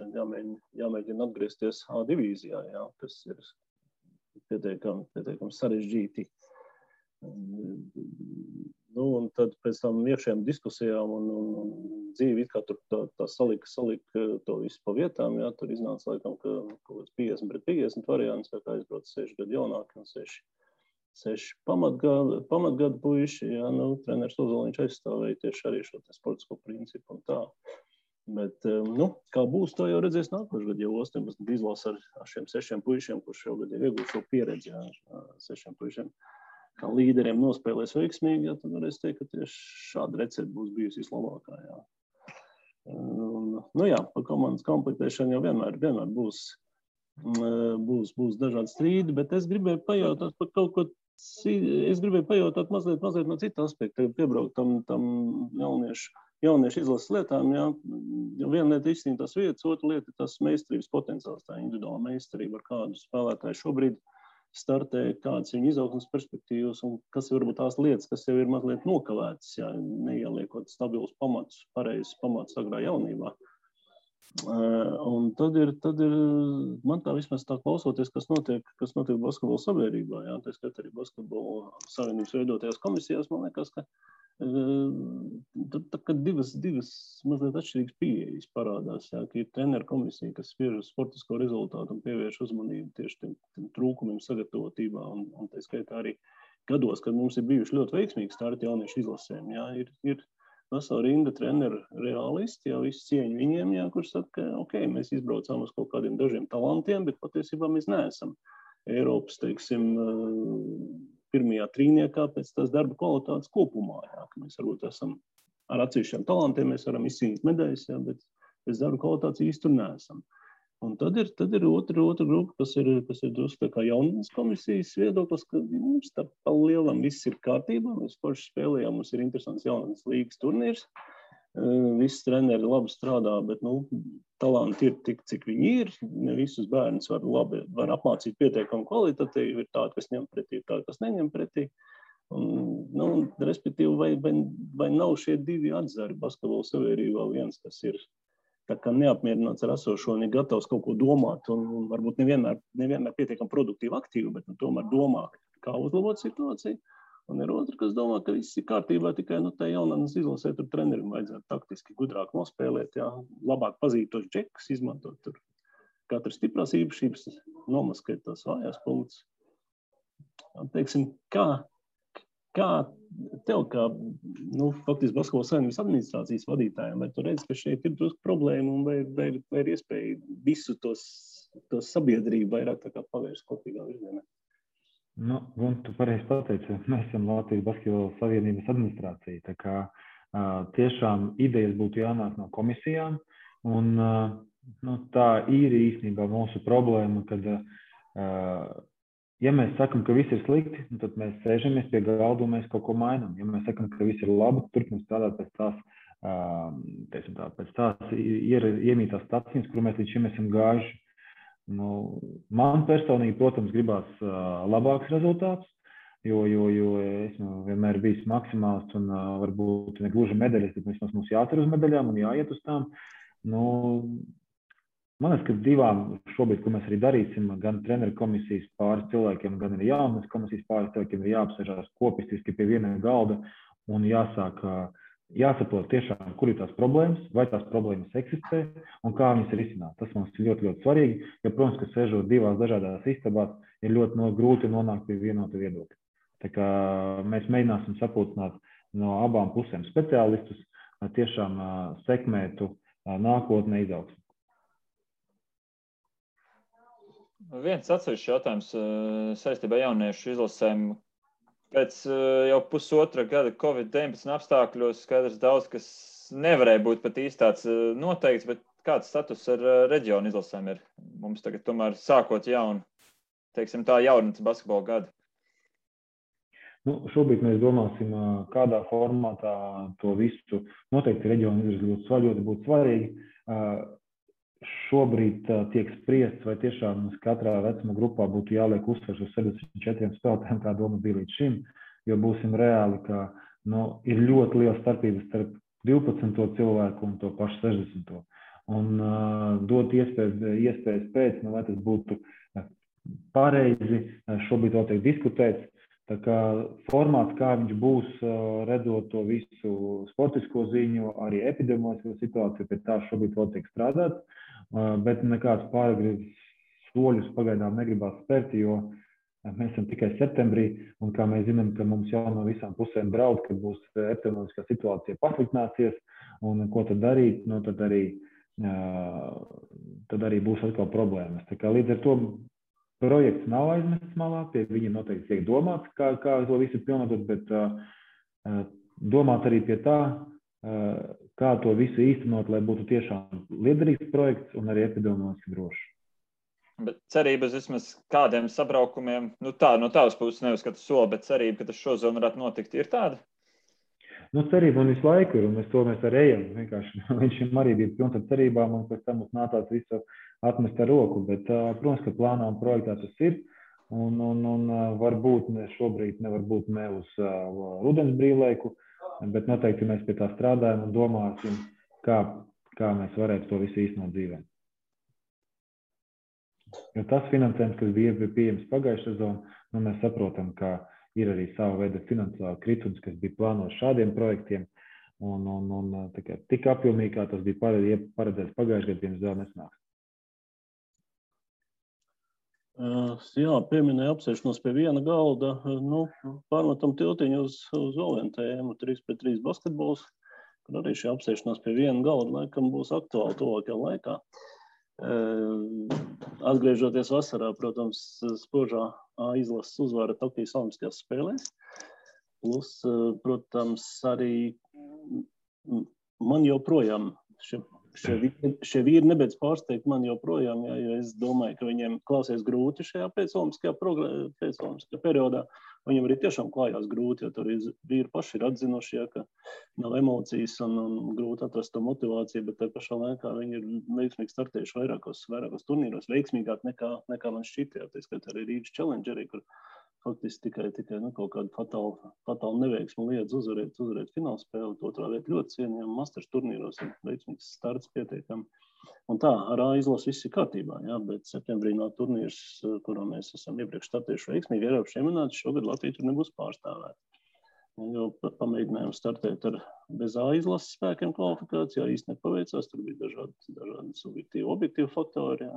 Speaker 2: Jāmēģina atgriezties A divīzijā, kas ir pietiekami sarežģīti. Un tad pēc tam iekšējām diskusijām un dzīvi kā tur tā salika to visu pa vietām, tur iznāca laikam, ka kaut kāds 50-50 variants, kā aizbrauc 6 gadu jaunāki un 6 pamatgadu puiši, treneris Ozoliņš aizstāvēja tieši arī šo sportisko principu un tā. Bet, kā būs, to jau redzēs nākošais gadu, jau 18 izlās ar šiem 6 puišiem, kurš šogad jau iegūst šo pieredzi, 6 puišiem. Kā līderiem nospēlēs veiksmīgi, tad varēs teikt, ka tieši šāda recepte būs bijusi vislabākā. Par komandas komplektēšanu jau vienmēr būs dažādi strīdi, bet es gribēju pajautāt par kaut ko, mazliet no cita aspekta, piebraukt tam jauniešu izlases lietām, Viena lieta izcīnīt tās vietas, otra lieta ir tās meistarības potenciāls, tā individuāla meistarība, ar kādu spēlētāju šobrīd startē, kādas ir viņa izaugsmes perspektīvas un kas ir varbūt tās lietas, kas jau ir mazliet nokavētas, neieliekot stabilus pamatus, pareizes pamatus agrā jaunībā. Un tad ir, man tā vismaz tā klausoties, kas notiek basketbola sabiedrībā, tā skat arī basketbola savienības veidotajās komisijās, man liekas, ka divas mazliet atšķirīgas pieejas parādās, ka ir treneru komisija, kas spiež uz sportisko rezultātu un pievērš uzmanību tieši tiem trūkumiem sagatavotībā un tā skaitā arī gados, kad mums ir bijuši ļoti veiksmīgi starti jauniešu izlasēm, ir vesela rinda treneru reālisti, visu cieņu viņiem, kurš saka, ka mēs izbraucām uz kaut kādiem dažiem talantiem, bet patiesībā mēs neesam Eiropas, pirmajā trīniekā pēc tās darba kvalitātes kopumā, ka mēs varbūt esam ar atsevišķiem talantiem, mēs varam izcīnīt medaļas, bet pēc darba kvalitātes īsti tur neesam. Un tad ir otra grupa, kas ir drusku kā jaunības komisijas viedoklis, ka mums tā pa lielam viss ir kārtībā, mēs forši spēlējām, mums ir interesants jaunības līgas turnīrs, visi treneri labi strādā, bet, talanti ir tik, cik viņi ir. Ne visus bērnus var apmācīt pietiekami kvalitatīvi. Ir tādi, kas ņem pretī, ir tādi, kas neņem pretī. Un, respektīvi, vai nav šie divi atzari basketbola sabiedrībā viens, kas ir tā kā neapmierināts ar esošo un ir gatavs kaut ko domāt un varbūt nevienmēr pietiekami produktīvi aktīvi, bet tomēr domā, kā uzlabot situāciju. Un ir otrs, kas domā, ka viss ir kārtībā, tikai tā jaunatnes izlasē tur trenerim vajadzētu taktiski gudrāk nospēlēt, labāk pazīt tos džekus, izmantot tur katras stiprās īpašības, nomaskēt tās vājās punktus. Teiksim, kā tev, kā faktiski Basketbola Savienības administrācijas vadītājiem, vai tu redzi, ka šeit ir drusku problēma un vai ir iespēja visu tos sabiedrību vairāk tā kā pavērst kopīgā virzienā?
Speaker 3: Un tu pareizi pateici, mēs esam Latvijas Basketbola Savienības administrācija, tā kā tiešām idejas būtu jānāk no komisijām, un tā ir īstenībā mūsu problēma, kad, ja mēs sakam, ka viss ir slikti, tad mēs sēžamies pie galda un mēs kaut ko mainām. Ja mēs sakam, ka viss ir labi, turpinām strādāt pēc tās iemītās stacijas, kur mēs līdz šim esam gājuši. Man personīgi, protams, gribās labāks rezultāts, jo esmu vienmēr bijis maksimāls un varbūt ne gluži medaļas, bet vismaz mums jācer uz medaļām un jāiet uz tām. Man liekas, ka divām šobrīd, ko mēs arī darīsim, gan treneru komisijas pāris cilvēkiem, gan arī jaunas komisijas pāris cilvēkiem ir jāapsēžās kopistiski pie viena galda un jāsaprot tiešām, kur ir tās problēmas, vai tās problēmas eksistē un kā viņas ir risināt. Tas mums ir ļoti, ļoti svarīgi, jo, protams, ka sēžot divās dažādās istabās, ir ļoti grūti nonākt pie vienota viedokļa. Tā kā mēs mēģināsim sapulcināt no abām pusēm speciālistus, lai tiešām sekmētu nākotnē izaugsmi.
Speaker 1: Viens atsevišķs jautājums saistībā jauniešu izlasēm. Pēc jau pusotra gada Covid-19 apstākļos skaidrs daudz, kas nevarēja būt pat īsti tāds noteikts, bet kāds status ar reģionu izlasēm ir? Mums tagad tomēr sākot jaunu, teiksim tā, jaunatnes basketbola gadu.
Speaker 3: Šobrīd mēs domāsim, kādā formātā to visu noteikti reģionu izlasē ļoti būtu svarīgi. Šobrīd tiek spriests, vai tiešām katrā vecuma grupā būtu jāliek uzsvars uz 74 spēlētājiem, kā doma bija līdz šim, jo būsim reāli, ka ir ļoti liela starpības starp 12. cilvēku un to pašu 60. Un dot iespējas pēc, vai tas būtu pareizi, šobrīd vēl tiek diskutēts. Tā kā formāts, kā viņš būs, redzot to visu sportisko ziņu, arī epidemioloģisko situāciju, pie tā šobrīd vēl tiek strādāts. Bet nekāds pāragri soļus pagaidām negribās spērt, jo mēs esam tikai septembrī, un kā mēs zinām, ka mums jau no visām pusēm draud, ka būs epidemioloģiskā situācija pasliktināsies, un ko tad darīt, tad arī būs atkal problēmas. Tā kā līdz ar to projekts nav aizmests malā, pie viņa noteikti tiek domāts, kā to visu pilnot, bet domāt arī pie tā, kā to visu īstenot, lai būtu tiešām liederīgs projekts un arī epidemioloģiski drošs.
Speaker 1: Bet cerības vismaz kādiem sabraukumiem, no tavas puses neuzskatu soli, bet cerība, ka tas šozon varētu notikt, ir tāda?
Speaker 3: Cerība un visu laiku ir, un mēs arī ejam. Vienkārši viņš arī bija pilns ar cerībām, un pēc tam mums nācās visu atmest ar roku. Bet, protams, ka plānā un projektā tas ir, un varbūt šobrīd nevar būt ne uz rudens brīvlaiku, bet noteikti mēs pie tā strādājam un domāsim, kā mēs varētu to visu īstenot dzīvē. Jo tas finansējums, kas bija pieejams pagājušajā sezonā, mēs saprotam, ka ir arī sava veida finansiāla kritums, kas bija plānots šādiem projektiem, un tik apjomīgi, kā tas bija paredzēts pagājušajā gadā, diemžēl nesnāks.
Speaker 2: Jā, pieminēja apsēšanos pie viena galda, pārmetam tiltiņu uz vēl vienu tēmu, 3-3 basketbols, kur arī šī apsēšanās pie viena galda laikam būs aktuāli tuvākajā laikā. Atgriežoties vasarā, protams, spožā izlases uzvara Tokijas Olimpiskajās spēlēs. Plus, protams, arī man joprojām šie vīri nebeidz pārsteigt man joprojām, jo es domāju, ka viņiem klausies grūti šajā pēcolimpiskajā periodā. Viņiem arī tiešām klājās grūti, jo tur vīri paši ir atzinuši, ka nav emocijas un grūti atrast to motivāciju, bet te pašā laikā viņi ir veiksmīgi startējuši vairākos turnīros, veiksmīgāk nekā man šķiet, tā skaitā arī Rīgas Challengeri, kur faktiski tikai kaut kādu fatālu neveiksmu liedz uzvarēt finālspēli, otrā vieta ļoti cienījama, Masters turnīros ir veiksmīgs starts pietiekami. Un tā, ar A izlases viss ir kārtībā, jā, bet septembrī nav turnīrs, kurā mēs esam iepriekš startējuši veiksmīgi Eiropas čempionāts, šogad Latvija tur nebūs pārstāvēta. Jo pamēģinājām startēt ar bez A izlases spēkiem kvalifikācijā, īsti nepaveicās, tur bija dažādi subjektīvi, objektīvi faktori, jā.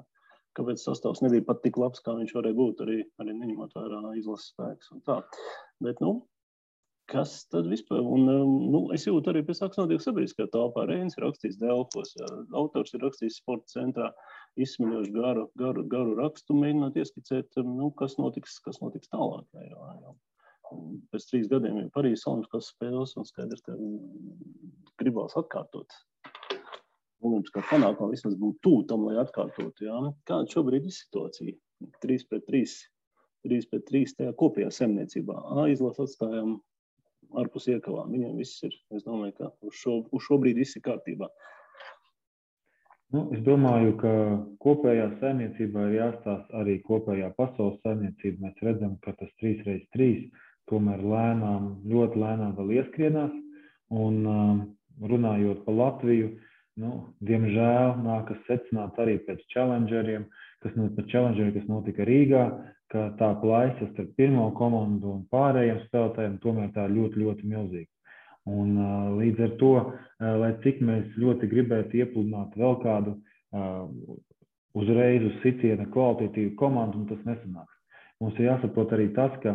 Speaker 2: Kāpēc sastāvs nebija pat tik labs, kā viņš varēja būt, arī neņemot vērā izlases spēks un tā. Bet, kas tad vispār? Un, es jūtu arī pēc akcionātību sabiedriskā telpā. Reinis ir rakstījis Delfos, autors ir rakstījis sporta centrā, izsmeļoši garu rakstu, mēģināt ieskicēt, kas notiks tālāk. Jā. Pēc 3 gadiem ir Parīzes olimpiskās spēles un skaidrs, ka gribās atkārtot. Olimpiskā panākuma vismaz būtu tuvu tam, lai atkārtotu. Jā. Kāda šobrīd ir situācija? 3-3 tajā kopējā saimniecībā. A izlases atstājām ārpus iekavām. Viņiem viss ir, es domāju, ka uz šobrīd viss ir kārtībā.
Speaker 3: Es domāju, ka kopējā saimniecībā ir jāstāsta arī kopējā pasaules saimniecība. Mēs redzam, ka tas 3x3 tomēr ļoti lēnām vēl ieskrienās. Un runājot par Latviju, diemžēl nākas secināt arī pēc challengeriem, kas notika Rīgā, ka tā plaisa starp pirmo komandu un pārējiem spēlētājiem tomēr tā ļoti, ļoti milzīga. Un līdz ar to, lai cik mēs ļoti gribētu iepludināt vēl kādu uzreiz uz sitiena kvalitatīvu komandu, un tas nesanāks. Mums ir jāsaprot arī tas, ka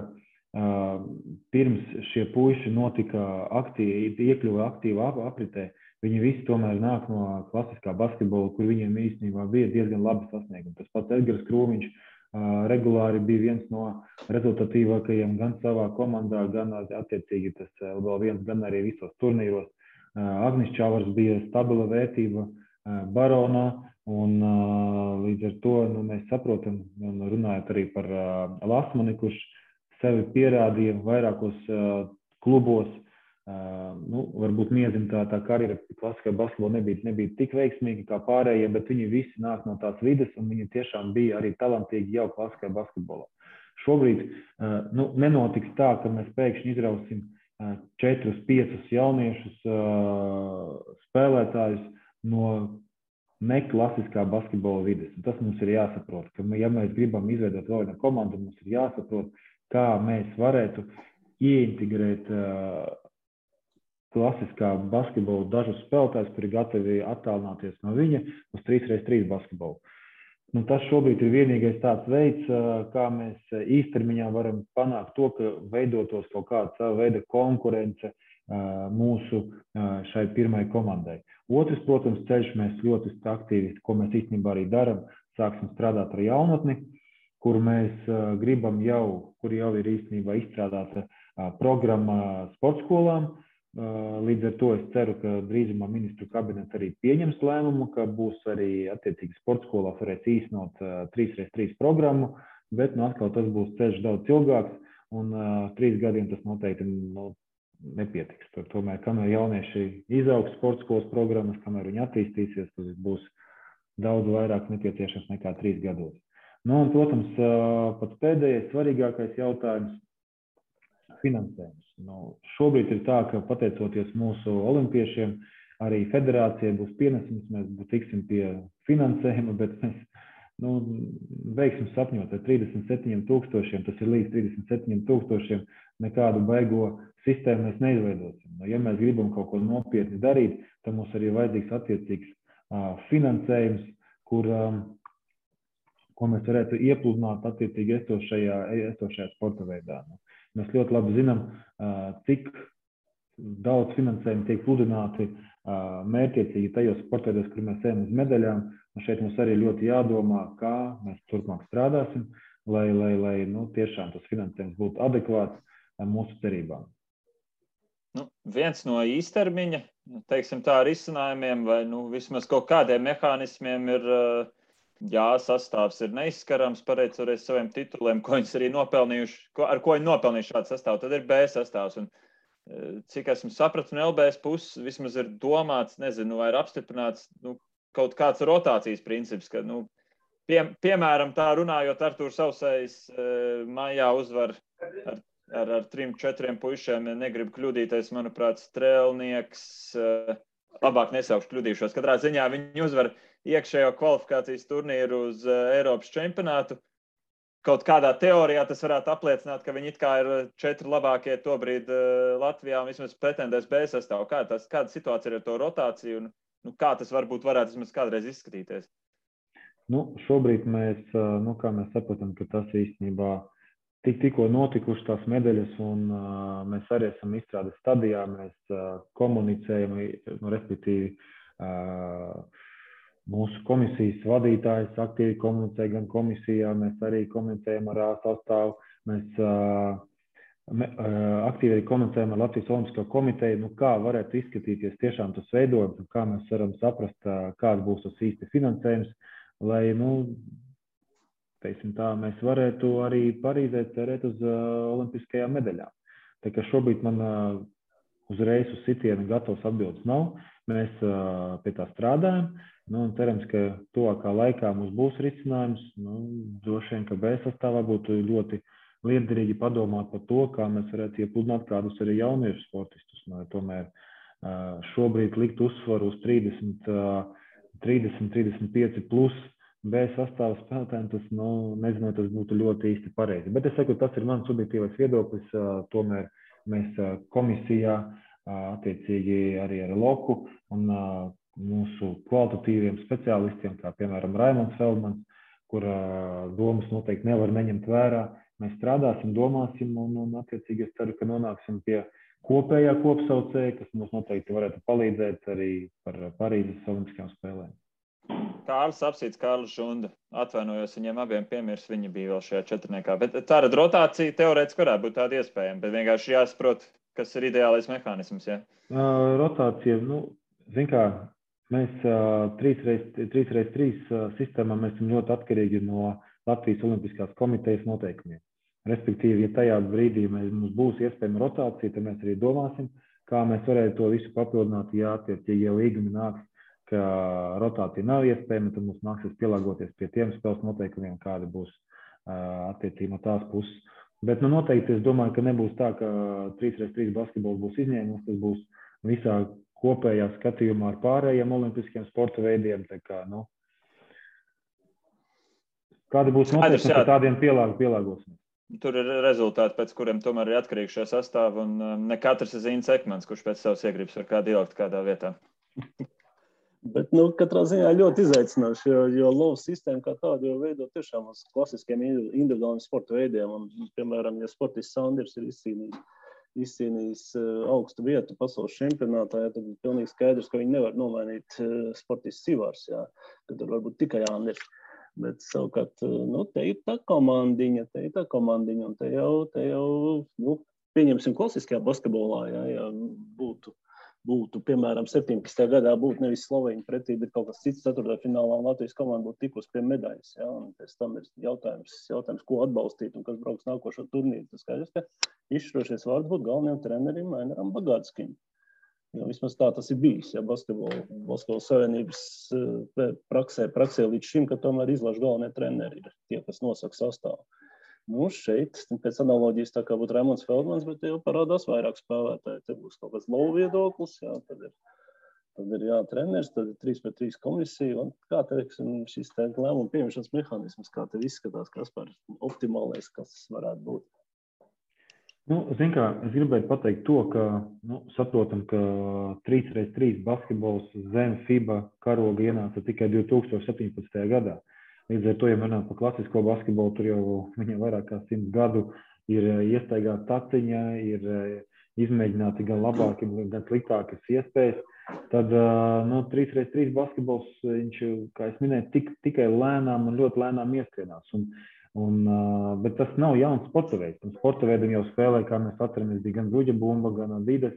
Speaker 3: pirms šie puiši iekļuva aktīvā apritē, viņi visi tomēr nāk no klasiskā basketbola, kur viņiem īstenībā bija diezgan labi sasniegumi. Tas pats Edgars Krūmiņš regulāri bija viens no rezultatīvākajiem gan savā komandā, gan attiecīgi tas vēl viens, gan arī visos turnīros. Agnis Čavars bija stabila vērtība Baronā, un līdz ar to mēs saprotam, un runājot arī par Lasmani, kurš sevi pierādīja vairākos klubos. Varbūt Miezim tā karjera klasiskā basketbolā nebija tik veiksmīga kā pārējie, bet viņi visi nāk no tās vides, un viņi tiešām bija arī talantīgi jau klasiskā basketbolā. Šobrīd nenotiks tā, ka mēs pēkšņi izrausim 4-5 jauniešus spēlētājus no neklasiskā basketbola vides. Un tas mums ir jāsaprot, ka ja mēs gribam izveidot vēl vienu komandu, mums ir jāsaprot, kā mēs varētu ieintegrēt klasiskā basketbola dažus spēlētājus, kuri gatavi attālināties no viņa uz 3x3 basketbolu. Tas šobrīd ir vienīgais tāds veids, kā mēs īstermiņā varam panākt to, ka veidotos kaut kāda sava veida konkurence mūsu šai pirmai komandai. Otrs, protams, ceļš mēs ļoti aktīvi, ko mēs īstenībā arī daram, sāksim strādāt ar jaunatni, kur mēs gribam kur jau ir īstenībā izstrādāta programma sportskolām. Līdz ar to es ceru, ka drīzumā ministru kabinets arī pieņems lēmumu, ka būs arī attiecīgi sportskolās varēs īstenot 3x3 programmu, bet atkal tas būs ceļš daudz ilgāks, un 3 gadiem tas noteikti nepietiks. Tomēr, kamēr jaunieši izaugs sportskolas programmas, kamēr viņi attīstīsies, tas būs daudz vairāk nepieciešams nekā 3 gados. Un, protams, pats pēdējais svarīgākais jautājums - finansējums. Šobrīd ir tā, ka pateicoties mūsu olimpiešiem, arī federācijai būs pienesums, mēs tiksim pie finansējuma, bet mēs veiksim sapņot ar 37 000, tas ir līdz 37 000, nekādu baigo sistēmu mēs neizveidosim. Ja mēs gribam kaut ko nopietni darīt, tad mums arī vajadzīgs attiecīgs finansējums, ko mēs varētu iepludināt attiecīgi esošajā sporta veidā. Mēs ļoti labi zinām, cik daudz finansējumu tiek pludināti mērķiecīgi tajos sportveidos, kur mēs ejam uz medaļām. Un šeit mums arī ļoti jādomā, kā mēs turpmāk strādāsim, lai tiešām tas finansējums būtu adekvāts mūsu cerībām.
Speaker 1: Viens no īstermiņa, teiksim tā, risinājumiem vai vismaz kaut kādiem mehānismiem ir sastāvs ir neizskarams, pateicoties saviem tituliem, ko viņas arī nopelnījuši, ar ko viņi nopelnījuši šādu sastāvu. Tad ir B sastāvs. Un cik esmu sapratu, no LBS puses vismaz ir domāts, nezinu, vai ir apstiprināts kaut kāds rotācijas princips, ka, piemēram, tā runājot, Artūrs Sausējs maijā uzvar ar 3-4 puišiem, negribu kļūdīties, manuprāt, Strēlnieks, labāk nesaukšu kļūdīšos. Katrā ziņā viņi uzvar iekšējo kvalifikācijas turnīru uz Eiropas čempionātu. Kaut kādā teorijā tas varētu apliecināt, ka viņi it kā ir 4 labākie tobrīd Latvijā un vismaz pretendēs B sastāvu. Kāda situācija ir ar to rotāciju un kā tas varētu vismaz kādreiz izskatīties?
Speaker 3: Šobrīd mēs, kā mēs saprotam, ka tas īstenībā tikko notikuši tās medaļas un mēs arī esam izstrādes stadijā, mēs komunicējam, respektīvi mūsu komisijas vadītājs aktīvi komunicē gan komisijā, mēs arī komunicējam ar sastāvu, mēs aktīvi arī komunicējam ar Latvijas Olimpisko komiteju, kā varētu izskatīties tiešām tas veidojums un kā mēs varam saprast, kāds būs tas īsti finansējums, lai, teiksim tā, mēs varētu arī Parīzē cerēt uz olimpiskajām medaļām. Tā kā šobrīd man uzreiz uz sitienu gatavs atbildes nav, mēs pie tā strādājam. Un cerams, ka tuvākā laikā mums būs risinājums. Droši vien, ka B sastāvā būtu ļoti liederīgi padomāt par to, kā mēs varētu iepludināt kādus arī jauniešu sportistus. Tomēr šobrīd likt uzsvaru uz 30-35 plus B sastāvā spēlētājiem, tas, nezinu, tas būtu ļoti īsti pareizi. Bet es saku, tas ir mans subjektīvais viedoklis. Tomēr mēs komisijā attiecīgi arī ar Loku un mūsu kvalitatīviem speciālistiem, kā piemēram Raimonds Feldmans, kur domas noteikti nevar neņemt vērā. Mēs strādāsim, domāsim un attiecīgi es ceru, ka nonāksim pie kopējā kopsaucēja, kas mums noteikti varētu palīdzēt arī par Parīzes olimpiskajām spēlēm.
Speaker 1: Kārlis Apsīts, Kārlis Žunda. Atvainojos, viņiem abiem piemirs, viņi bija vēl šajā četrniekā. Bet tāda rotācija teorētiski varētu būt tāda iespējama, bet vienkārši jāsaprot, kas ir ideālais mehānisms, ja?
Speaker 3: Rotācija, zin kā, mēs 3x3 sistēmā mēs esam ļoti atkarīgi no Latvijas Olimpiskās komitejas noteikumiem. Respektīvi, ja tajā brīdī mums būs iespējama rotācija, tad mēs arī domāsim, kā mēs varētu to visu papildināt. Ja attiecīgi jau līgumi nāks, ka rotācija nav iespējama, tad mums nāksies pielāgoties pie tiem spēles noteikumiem, kādi būs attiecīgi no tās puses. Bet noteikti es domāju, ka nebūs tā, ka 3x3 basketbols būs izņēmums, tas būs visā kopējā skatījumā ar pārējiem olimpiskiem sporta veidiem. Tā kā, kādi būs noteikumi, ka tādiem pielāgosim?
Speaker 1: Tur ir rezultāti, pēc kuriem tomēr ir atkarīgi šie sastāvi, un ne katrs ir Zīns Ekmans, kurš pēc savas iegribas var kādu ielikt kādā vietā.
Speaker 2: Bet, katrā ziņā ļoti izaicinoši, jo lovu sistēma kā tāda jau veido tiešām uz klasiskiem individuāliem sporta veidiem. Un, piemēram, ja sportists Sanders ir izcīnījis augstu vietu pasaules čempionātā, tad ir pilnīgi skaidrs, ka viņi nevar nomainīt sportists Sivārs, ka tur varbūt tikai Anders. Bet savukārt, te ir tā komandiņa, un te jau pieņemsim klasiskajā basketbolā, ja būtu, piemēram, 17. gadā būtu nevis Sloveņi pretī, bet kaut kas cits 4. finālā un Latvijas komanda būtu tikus pie medaļas, un pēc tam ir jautājums, ko atbalstīt un kas brauks nākošo turnīru. Tas skaidrs, ka izšķirošies vārds būtu galvenajam trenerim Ainaram Bagātskim. Jo vismaz tā tas ir bijis, basketbola savienības praksē līdz šim, ka tomēr izlaž galvenie treneri ir tie, kas nosaka sastāvu. Šeit, pēc analoģijas, tā kā būtu Raimonds Feldmans, bet jau parādās vairāk spēlētāji. Te būs kaut kāds lovu viedoklis, tad ir treneris, tad ir 3x3 komisija, un kā teiksim, šis lēmumu pieņemšanas mehānisms, kā tev izskatās, kas par optimālais, kas varētu būt?
Speaker 3: Zin kā, es gribēju pateikt to, ka saprotam, ka 3x3 basketbols zem FIBA karoga ienāca tikai 2017. gadā. Līdz ar to, ja runājam par klasisko basketbolu, tur jau viņiem vairāk kā 100 gadu ir iestaigāta taciņa, ir izmēģināti gan labāki, gan sliktākas iespējas. Tad 3x3 basketbols, viņš, kā es minēju, tikai lēnām un ļoti lēnām ieskrienās. Bet tas nav jauns sporta veids. Sporta veidam jau spēlē, kā mēs atceramies, bija gan bruģa bumba, gan Adidas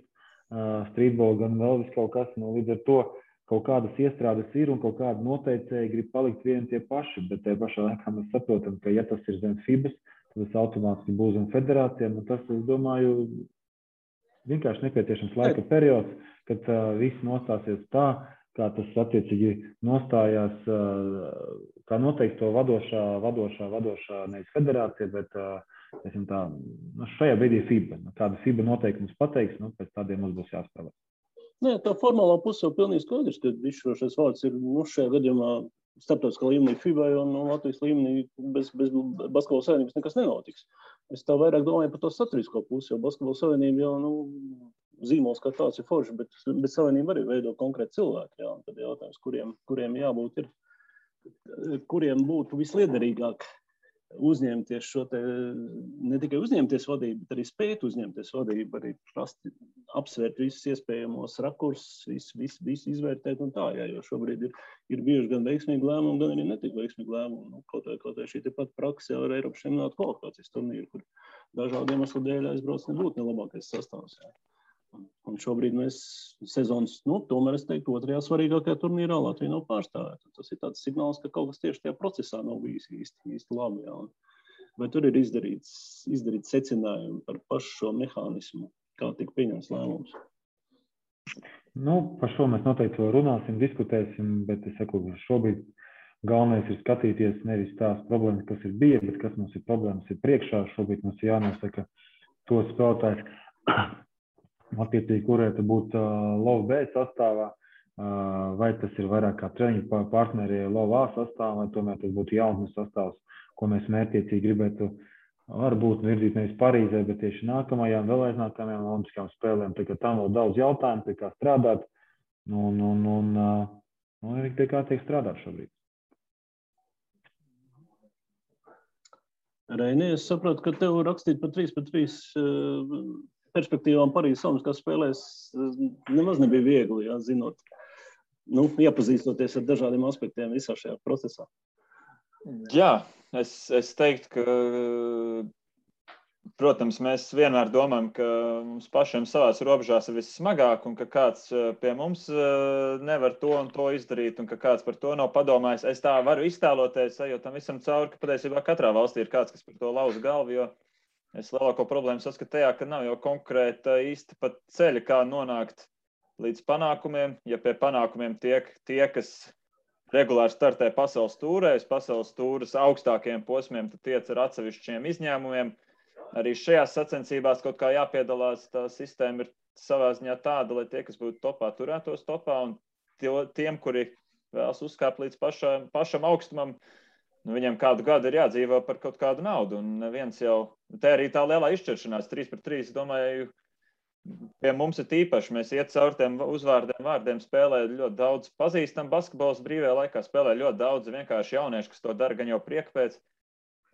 Speaker 3: streetball, gan vēl vis kaut kas. Līdz ar to kaut kādas iestrādes ir un kaut kāda noteicēji grib palikt vieni tie paši, bet tajā pašā laikā mēs saprotam, ka ja tas ir zem FIBAS, tad tas automātiski būs zem federācijām, un tas, es domāju, vienkārši nepieciešams laika periods, kad viss nostāsies tā, kā tas attiecīgi nostājās, kā noteikti to vadošā nevis federācija, bet tā, šajā brīdī FIBA. Kāda FIBA noteikums pateiks, pēc tādiem mums būs jāspēlē.
Speaker 2: Nē, tā formālā puse jau pilnīgi skaidrs, ka izšķirošais vārds ir šajā gadījumā starptautiskā līmenī FIBA un Latvijas līmenī bez Basketbola savienības nekas nenotiks. Es tā vairāk domāju par to saturisko pusi, jo Basketbola savienība jau zīmols kā tāds ir forši, bet savienība arī veido konkrēti cilvēki. Jā, un tad jautājums, kuriem jābūt ir, kuriem būtu visliederīgāk uzņemties šo te, ne tikai uzņemties vadību, bet arī spēt uzņemties vadību, arī apsvērt visus iespējamos rakursus, visu izvērtēt un tā, jā, jo šobrīd ir bijuši gan veiksmīgi lēmumi, gan arī netik veiksmīgi lēmumi. Kaut vai šī tepat praksa jau ar Eiropas čempionāta kvalifikācijas turnīru, kur dažādu iemeslu dēļ aizbrauc nebūtu nelabākais sastāvs. Jā. Un šobrīd mēs sezonas, tomēr es teiktu, otrajā svarīgākajā turnīrā Latvija nav pārstāvēta. Tas ir tāds signāls, ka kaut kas tieši tajā procesā nav bijis īsti labi. Jā. Vai tur ir izdarīts secinājumi par pašu šo mehānismu, kā tika pieņemts lēmums?
Speaker 3: Par šo mēs noteikti vēl runāsim, diskutēsim, bet es saku, šobrīd galvenais ir skatīties nevis tās problēmas, kas ir bija, bet kas mums ir problēmas ir priekšā. Šobrīd mums ir jānosaka tos spēlētājs, attiecīgi, kurēta būtu LOV B sastāvā, vai tas ir vairāk kā treniņu partneri LOV A sastāvā, vai tomēr tas būtu jaunatnes sastāvs, ko mēs mērķiecīgi gribētu varbūt virzīt nevis Parīzē, bet tieši nākamajām, vēl aiznākamajām olimpiskajām spēlēm. Tā kā tam vēl daudz jautājumu, pie kā strādāt, un pie kā tiek strādāt šobrīd.
Speaker 2: Reini, es saprotu, ka tev rakstīt par 3-3 perspektīvām Parīzes Olimpiskās spēlēs nemaz nebija viegli, jā, zinot, iepazīstoties ar dažādiem aspektiem visā šajā procesā.
Speaker 1: Jā, es teiktu, ka, protams, mēs vienmēr domājam, ka mums pašiem savās robežās ir vissmagāk un ka kāds pie mums nevar to un to izdarīt un ka kāds par to nav padomājis. Es tā varu iztēloties, jo tam visam cauri, ka patiesībā katrā valstī ir kāds, kas par to lauza galvu, jo es lielāko problēmu saskatu tajā, ka nav jau konkrēta īsti pat ceļa, kā nonākt līdz panākumiem. Ja pie panākumiem tiek tie, kas regulāri startē pasaules tūrēs, pasaules tūras augstākajiem posmiem, tad tiec ar atsevišķiem izņēmumiem. Arī šajās sacensībās kaut kā jāpiedalās, tā sistēma ir savā ziņā tāda, lai tie, kas būtu topā, turētos topā, un tiem, kuri vēlas uzkāpt līdz pašam augstumam, viņiem kādu gadu ir jādzīvo par kaut kādu naudu, un viens jau, te arī tā lielā izšķiršanās 3-3, domāju, pie mums ir tīpaši, mēs iet caur tiem vārdiem, spēlē ļoti daudz pazīstam basketbols brīvajā laikā, spēlē ļoti daudz vienkārši jaunieši, kas to dara gan jau prieka pēc.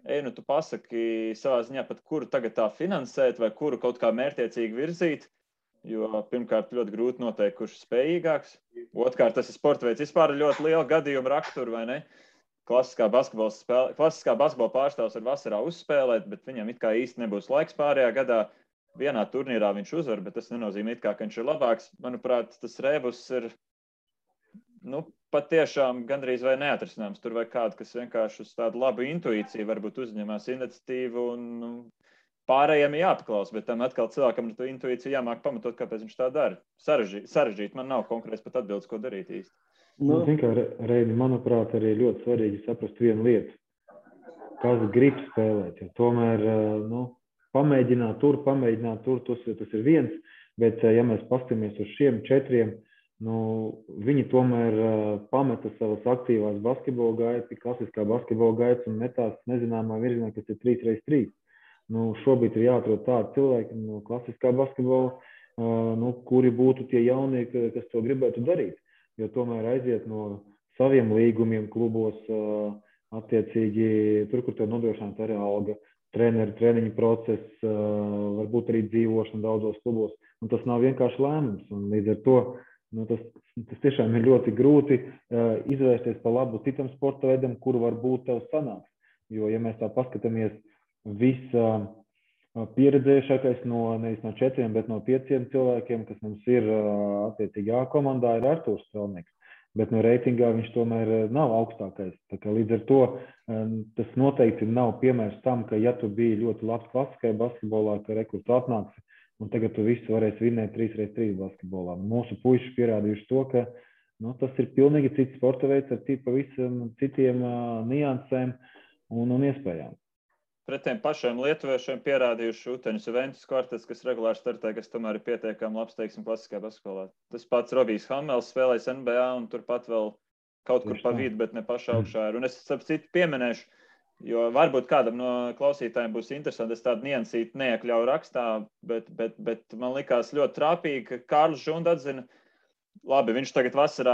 Speaker 1: Tu pasaki savā ziņā pat, kuru tagad tā finansēt vai kuru kaut kā mērķiecīgi virzīt, jo pirmkārt ļoti grūti noteikt, kurš ir spējīgāks. Otrkārt, tas ir sporta veids vispār ļoti liela gadījuma rakstura, vai ne? Klasiskā basketbola pārstāvs var vasarā uzspēlēt, bet viņam it kā īsti nebūs laiks pārējā gadā. Vienā turnīrā viņš uzvar, bet tas nenozīmē it kā, ka viņš ir labāks. Manuprāt, tas rebus ir patiešām gandrīz vai neatrisināms. Tur vai kādu, kas vienkārši uz tādu labu intuīciju varbūt uzņemās iniciatīvu un pārējiem ir jāpaklaus, bet tam atkal cilvēkam ar to intuīciju jāmāk pamatot, kāpēc viņš tā dara. Sarežģīt, man nav konkrēts pat atbildes, ko darīt īsti.
Speaker 3: Reini, manuprāt, arī ļoti svarīgi saprast vienu lietu. Kas grib spēlēt, jo tomēr, pamēģināt tur, tas ir viens, bet ja mēs paskatāmies uz šiem 4, viņi tomēr pameta savas aktīvās basketbola gaitas, klasiskā basketbola gaitas un metās nezināmā virzienā, kas ir 3x3. Šobrīd ir jāatrod tādi cilvēki no klasiskā basketbola, kuri būtu tie jaunie, kas to gribētu darīt. Jo tomēr aiziet no saviem līgumiem klubos, attiecīgi tur, kur tev nodrošināta arī alga, treniņu process, varbūt arī dzīvošana daudzos klubos. Un tas nav vienkārši lēmums. Un līdz ar to tas tiešām ir ļoti grūti izvērsties pa labu citam sporta veidam, kuru varbūt tev sanāks. Jo, ja mēs tā paskatāmies, pieredzējušākais nevis no 4, bet no 5 cilvēkiem, kas mums ir attiecīgi A komandā, ir Artūrs Strelnieks. Bet no reitingā viņš tomēr nav augstākais. Tā kā līdz ar to tas noteikti nav piemērs tam, ka ja tu biji ļoti labs klasiskajā basketbolā, ka tu atnāksi un tagad tu visu varēsi vinnēt 3x3 basketbolā. Mūsu puiši pierādījuši to, ka tas ir pilnīgi cits sporta veids ar pavisam citiem niansēm un iespējām.
Speaker 1: Pret tiem pašiem lietuviešiem pierādījuši Uteņas Juventus kvartets, kas regulāri startē, kas tomēr ir pietiekami labs, teiksim, klasiskajā basketbolā. Tas pats Robijs Hamels spēlējis NBA un turpat vēl kaut kur pa vidu, bet ne pašā augšā ir. Un es ap citu pieminēšu, jo varbūt kādam no klausītājiem būs interesanti, es tādu niansīti neiekļauju rakstā, bet man likās ļoti trāpīgi, ka Kārlis Žunda atzina, labi, viņš tagad vasarā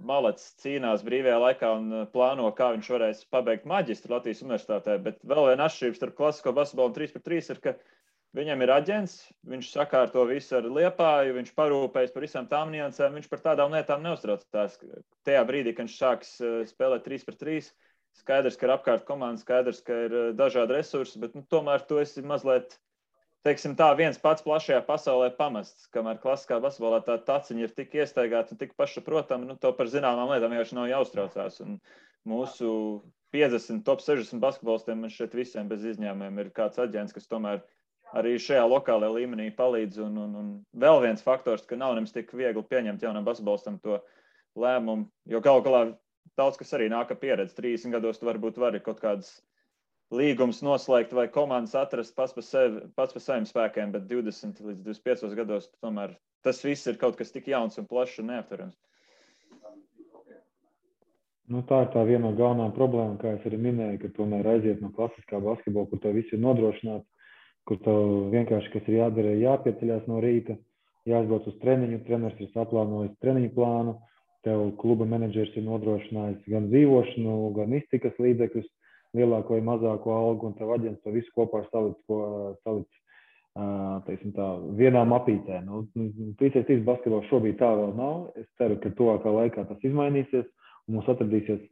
Speaker 1: malets cīnās brīvajā laikā un plāno, kā viņš varēs pabeigt maģistru Latvijas universitātē, bet vēl viena atšķirība starp klasisko basketbolu un 3x3 ir, ka viņam ir aģents, viņš sakārto visu ar Liepāju, viņš parūpējas par visām tām niansēm, viņš par tādām lietām neuztraucās. Tajā brīdī, kad viņš sāks spēlēt 3x3, skaidrs, ka ir apkārt komanda, skaidrs, ka ir dažādi resursi, bet tomēr tu esi mazliet, teiksim tā, viens pats plašajā pasaulē pamests, kamēr klasiskā basketbolā tā taciņa ir tik iestaigāta un tik pašsaprotama, to par zināmām lietām vienkārši nav jāuztraucās. Un mūsu 50, top 60 basketbolistiem man šeit visiem bez izņēmumiem ir kāds aģents, kas tomēr arī šajā lokālajā līmenī palīdz. Un vēl viens faktors, ka nav nemaz tik viegli pieņemt jaunam basketbolistam to lēmumu, jo galu galā daudz, kas arī nāk ar pieredzi. 30 gados tu varbūt vari kaut kādas līgumus noslēgt vai komandas atrast pats par saviem spēkiem, bet 20 līdz 25 gados tomēr tas viss ir kaut kas tik jauns un plašs un neaptverams.
Speaker 3: Tā ir tā viena no galvenām problēmām, kā es arī minēju, ka tomēr aiziet no klasiskā basketbola, kur tev viss ir nodrošināts, kur tev vienkārši, kas ir jādara, jāpieceļās no rīta, jāizbrauc uz treniņu, treneris ir saplānojis treniņu plānu, tev kluba menedžers ir nodrošinājis gan dzīvošanu, gan iztikas līdzekļus, lielāko vai mazāko algu, un tev aģents to visu kopā salic teiksim tā, vienā mapītē. 3x3 basketbols šobrīd tā vēl nav. Es ceru, ka tuvākā laikā tas izmainīsies, un mums atradīsies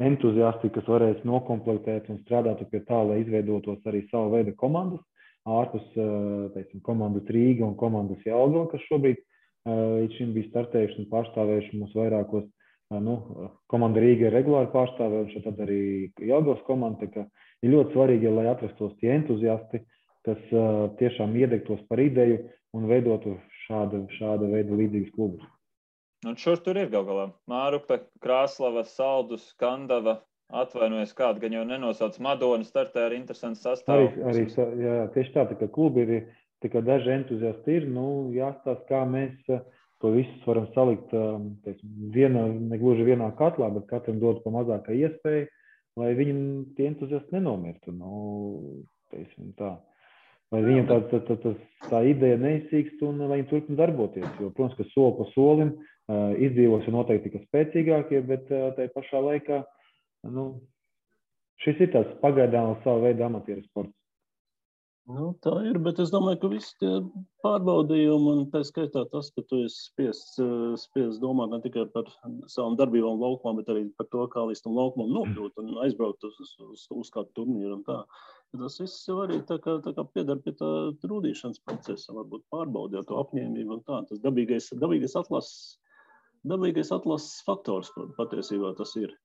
Speaker 3: entuziasti, kas varēs nokomplektēt un strādāt pie tā, lai izveidotos arī savu veidu komandas, ārpus, teiksim, komandas Rīga un komandas Jelgava, kas šobrīd līdz šim bija startējuši un pārstāvējuši mums vairākos. Komanda Rīga ir regulāri pārstāvējuši, tad arī Jelgavas komanda, ka ir ļoti svarīgi, lai atrastos tie entuziasti, kas tiešām iedegtos par ideju un veidotu šāda veida līdzīgas klubus.
Speaker 1: Un šur tur ir gal galā. Mārupe, Krāslava, Saldus, Skandava, atvainojas kādu, gan jau nenosauc Madona, startē ar interesantu sastāvu.
Speaker 3: Arī jā, tieši tā, ka klubi ir, tikai daži entuziasti ir, jāstāsta, kā mēs to visus varam salikt, negluži vienā katlā, bet katram dot pa mazākai iespēju, lai viņam tie entuziasti nenomirtu. Tā. Lai viņam tā ideja neizsīkst un lai viņi turpina darboties. Jo, protams, ka soli pa solim izdzīvos noteikti tikai spēcīgākie, bet tai pašā laikā šis ir tāds pagaidām savu veidu amatieru sports.
Speaker 2: Tā ir, bet es domāju, ka visi tie pārbaudījumi un tā skaitā tas, ka tu esi spiests domāt ne tikai par savām darbībām laukumā, bet arī par to, kā līdz tam laukumam nokļūt un aizbraukt uz kādu turnīru un tā. Tas viss jau arī tā kā piedar pie tā rūdīšanas procesa, varbūt pārbaudīt to apņēmību un tā. Tas dabīgais atlases faktors, patiesībā tas ir.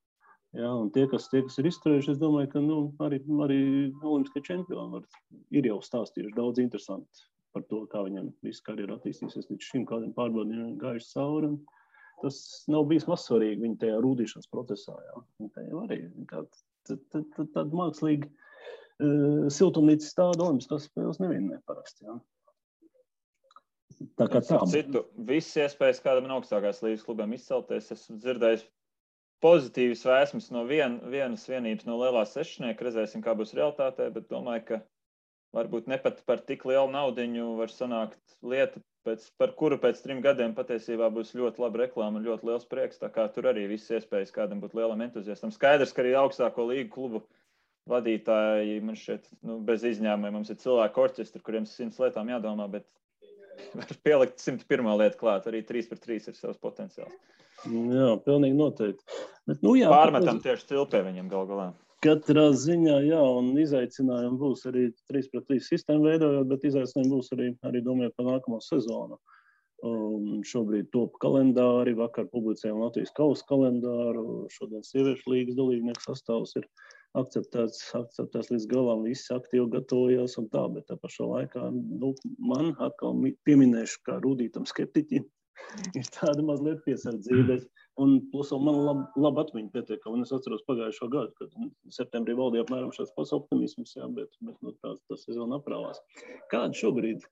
Speaker 2: Jā, un tie, kas ir izturējuši, es domāju, ka arī olimpiskie čempioni ir jau stāstījuši daudz interesanti par to, kā viņam visu karjeru attīstīsies līdz šim, kādiem pārbaudījumiem gājuši cauri. Tas nav bijis mazsvarīgi viņa tajā rūdīšanas procesā. Jā. Tā jau arī tāda mākslīga siltumnīca stāda olimpiskās spēles nevienmēr parasti. Jā. Tā kā tā.
Speaker 1: Citu, visas iespējas kādam no augstākās līgas klubiem izcelties, esmu dzirdējis pozitīvas vēsmas no vienas vienības no lielās sešnieka, redzēsim, kā būs realitātē, bet domāju, ka varbūt ne pat par tik lielu naudiņu var sanākt lieta, par kuru pēc 3 gadiem patiesībā būs ļoti laba reklāma un ļoti liels prieks, tā kā tur arī visas iespējas kādam būt lielam entuziastam. Skaidrs, ka arī augstāko līgu klubu vadītāji, man šeit, bez izņēmumiem, mums ir cilvēku orķestri, kuriem 100 lietām jādomā, bet var pielikt 101. lietu klāt, arī 3x3 ir savs potenciāls.
Speaker 2: Jā, pilnīgi noteikti. Bet,
Speaker 1: pārmetam tieši cilpē viņam gal galā.
Speaker 2: Katrā ziņā, jā, un izaicinājumi būs arī 3x3 sistēmu veidojot, bet izaicinājumi būs arī domājot par nākamo sezonu. Šobrīd top kalendāri, vakar publicējām Latvijas kausa kalendāru, šodien sieviešu līgas dalībnieku sastāvs ir akceptēts līdz galam, visi aktīvi gatavojās un tā, bet tā pašā laikā, man atkal pieminēšu kā rūdītam skeptiķim, ir tāda mazliet piesardzība. Un plus man labi atmiņa pietiek, un es atceros pagājušo gadu, kad septembrī valdīja apmēram šāds pats optimisms, jā, bet tā sezona aprāvās. Kāda šobrīd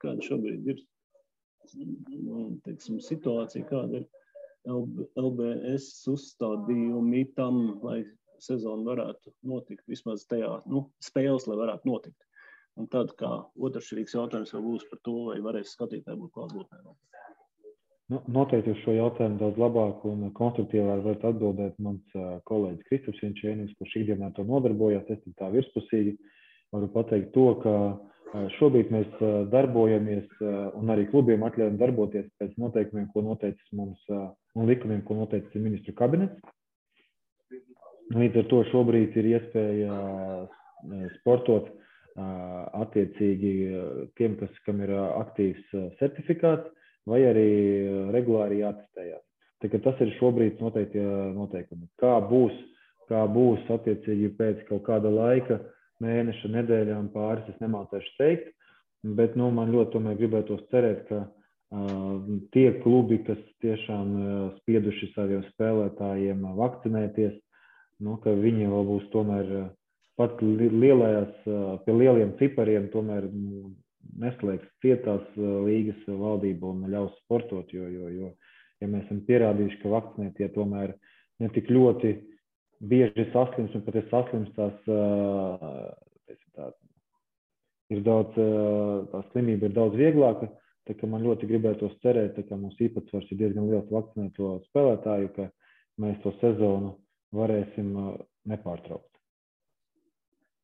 Speaker 2: ir, teiksim, situācija, kāda ir LBS uzstādījumi tam, lai sezona varētu notikt, vismaz tajā, spēles, lai varētu notikt. Un tad, kā otršķirīgs jautājums jau būs par to, vai varēs skatītāji būt klātbūtnē.
Speaker 3: Noteikti uz šo jautājumu daudz labāk un konstruktīvāk var atbildēt mans kolēģis Kristaps Jančēnis, kurš ikdienā to nodarbojās. Es tā virspusīgi varu pateikt to, ka šobrīd mēs darbojamies un arī klubiem atļaujam darboties pēc noteikumiem, ko noteicis mums un likumiem, ko noteicis ministru kabinets. Līdz ar to šobrīd ir iespēja sportot attiecīgi tiem, kam ir aktīvs certifikāts, vai arī regulāri jātestējās. Tā kā tas ir šobrīd noteikti noteikumi. Kā būs attiecīgi pēc kaut kāda laika, mēneša, nedēļām pāris, es nemācēšu teikt, bet man ļoti tomēr gribētos cerēt, ka tie klubi, kas tiešām spieduši saviem spēlētājiem vakcinēties, ka viņi vēl būs tomēr pat lielajās, pie lieliem cipariem tomēr neslēgs cietās līgas valdība un ļaus sportot, jo ja mēs esam pierādījuši, ka vakcinētie tomēr ne tik ļoti bieži saslims, un pat saslimstās, ir daudz, tā slimība ir daudz vieglāka, tā ka man ļoti gribētos cerēt, ka mums īpatsvars ir diezgan liels vakcinēto spēlētāju, ka mēs to sezonu varēsim nepārtraukt.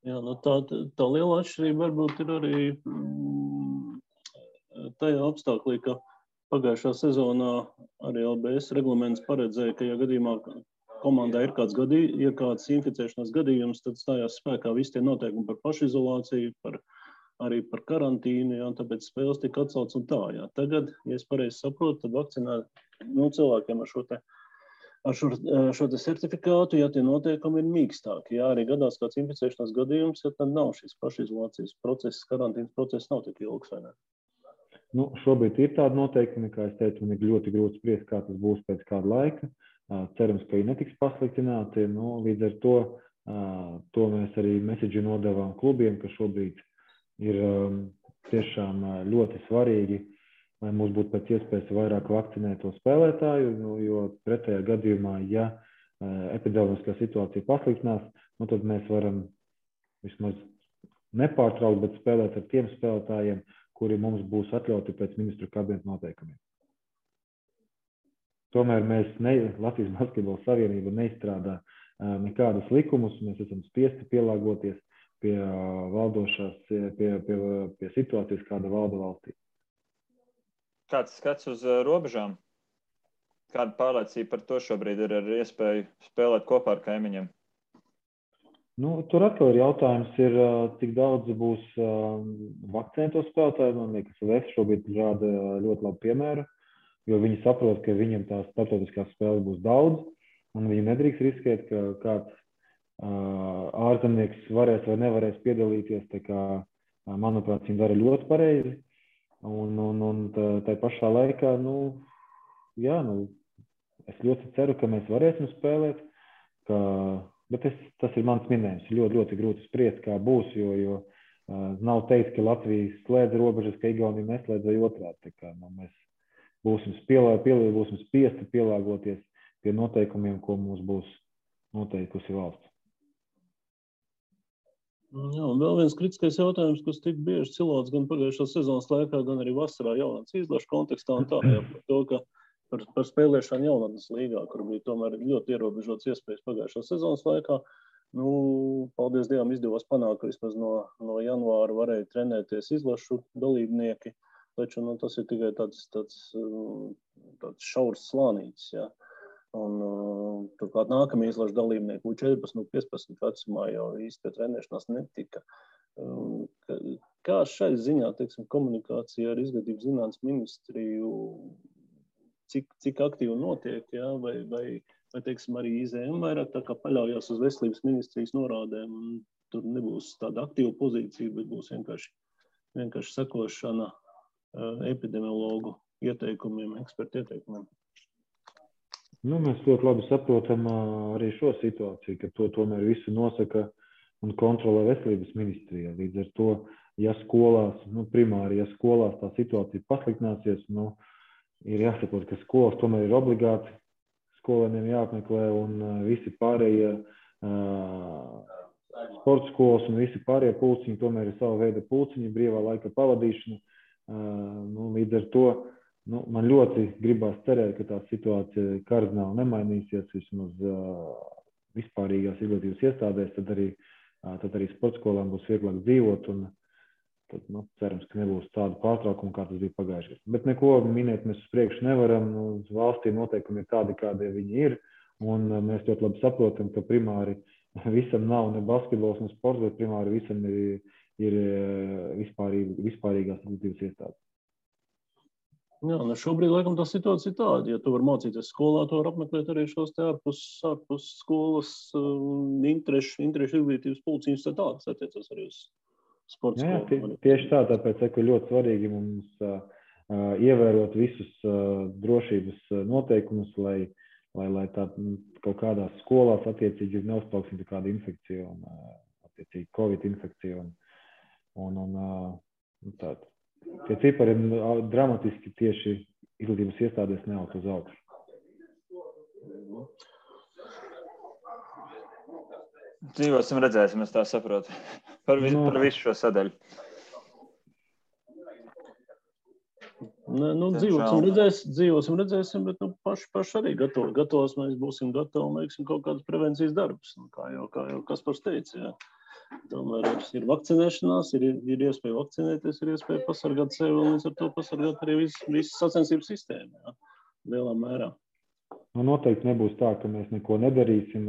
Speaker 2: Jā, tā liela atšķirība varbūt ir arī tajā apstāklī, ka pagājušā sezonā arī LBS reglaments paredzēja, ka ja gadījumā komandā ir kāds inficēšanās gadījums, tad stājās spēkā visi tie noteikumi par pašizolāciju, arī par karantīnu, jā, tāpēc spēles tika atcelts un tā. Jā. Tagad, ja es pareizi saprotu, tad vakcinēt cilvēkiem ar šo certifikātu, ja tie noteikumi ir mīkstāki. Jā, arī gadās kāds inficēšanās gadījums, ja tad nav šis pašizolācijas process, karantīnas process nav tik ilgs, vai ne?
Speaker 3: Šobrīd ir tādi noteikumi, kā es teicu, un ir ļoti grūti spriest, kā tas būs pēc kāda laika. Cerams, ka viņi netiks pasliktināti. Līdz ar to mēs arī message nodevām klubiem, ka šobrīd ir tiešām ļoti svarīgi, lai mums būtu pēc iespējas vairāk vakcinēto spēlētāju, jo pretējā gadījumā, ja epidemiskā situācija pasliktinās, tad mēs varam vismaz nepārtraukt, bet spēlēt ar tiem spēlētājiem, kuri mums būs atļauti pēc ministru kabineta noteikumiem. Tomēr Latvijas Basketbola Savienība neizstrādā nekādus likumus, mēs esam spiesti pielāgoties pie valdošās, pie situācijas, kāda valda valstī.
Speaker 1: Kāds skats uz robežām? Kāda pārliecība par to šobrīd ir ar iespēju spēlēt kopā ar kaimiņiem?
Speaker 3: Tur atkal ir jautājums, cik daudz būs vakcinēto spēlētāju. Man liekas, VF šobrīd rāda ļoti labu piemēru, jo viņi saprot, ka viņiem tās starptautiskās spēles būs daudz, un viņi nedrīkst riskēt, ka kāds ārzemnieks varēs vai nevarēs piedalīties. Tā kā, manuprāt, viņi dara ļoti pareizi. Un tā pašā laikā, es ļoti ceru, ka mēs varēsim spēlēt, bet tas ir mans minējums. Ļoti, ļoti grūti spriest, kā būs, jo nav teikt, ka Latvija slēdz robežas, ka Igaunija neslēdz vai otrādi. Tā kā, mēs būsim spiesti pielāgoties pie noteikumiem, ko mums būs noteikusi valsts.
Speaker 2: Jā, un vēl viens kritiskais jautājums, kas tik bieži cilāts gan pagājušās sezonas laikā, gan arī vasarā jaunatnes izlašu kontekstā un tā, jā, par to, ka par spēlēšanu jaunatnes līgā, kur bija tomēr ļoti ierobežots iespējas pagājušās sezonas laikā. Paldies Dievam izdevās panākt, ka vismaz no janvāra varēja trenēties izlašu dalībnieki, taču tas ir tikai tāds šaurs slānītis, jā. Un turklāt nākamie izlašu dalībnieki 14, 15 vecumā jau īsti pie trenēšanās netika. Kā šai ziņā, komunikācija ar Izglītības zinātnes ministriju, cik aktīvi notiek, jā, vai vai teiksim, arī IZM vairāk tā kā paļaujās uz veselības ministrijas norādēm, un tur nebūs tāda aktīva pozīcija, bet būs vienkārši sekošana epidemiologu ieteikumiem, ekspertu ieteikumiem.
Speaker 3: Nu, mēs ļoti labi saprotam arī šo situāciju, ka to tomēr visu nosaka un kontrolē veselības ministrija. Līdz ar to, ja skolās, primāri, ja skolās tā situācija pasliktināsies, ir jāsaprot, ka skolas tomēr ir obligāti, skolēniem jāapmeklē un visi pārējie sporta skolas un visi pārējie pulciņi tomēr ir sava veida pulciņi, brīvā laika pavadīšana. Līdz ar to man ļoti gribās cerēt, ka tā situācija kardināli nemainīsies vismaz vispārīgās izglītības iestādēs, tad arī sporta skolām būs vieglāk dzīvot un tad, cerams, ka nebūs tādu pārtraukumu, kā tas bija pagājušajā. Bet neko minēt mēs uz priekšu nevaram. Uz valstī noteikumi ir tādi, kādi viņi ir, un mēs ļoti labi saprotam, ka primāri visam nav ne basketbols, ne sports, bet primāri visam ir vispārīgās izglītības iestādes.
Speaker 2: Jā, šobrīd, laikam, tā situācija ir tāda. Ja tu vari mācīties skolā, tu vari apmeklēt arī šos te ārpus skolas interešu izglītības pulciņus, tad tādas attiecas arī uz sporta skolu.
Speaker 3: Tieši tā, tāpēc ir ļoti svarīgi mums ievērot visus drošības noteikumus, lai tā kaut kādās skolās attiecīgi neuzplauksim kāda infekcija un attiecīgi Covid infekcija un tāda. Tie cipari ir dramatiski tieši izglītības iestādēs neaug uz augšu.
Speaker 1: Dzīvosim, redzēsim, es tā saprotu. Par visu šo sadaļu.
Speaker 2: Dzīvosim, redzēsim, bet paši arī gatavos mēs būsim gatavi un veiksim kaut kādus prevencijas darbus. Kā jau Kaspars teica, jā. Tomēr ir vakcinēšanās, ir iespēja vakcinēties, ir iespēja pasargāt sevi un līdz ar to pasargāt arī visu sacensību sistēmu, jā, lielā mērā.
Speaker 3: Noteikti nebūs tā, ka mēs neko nedarīsim.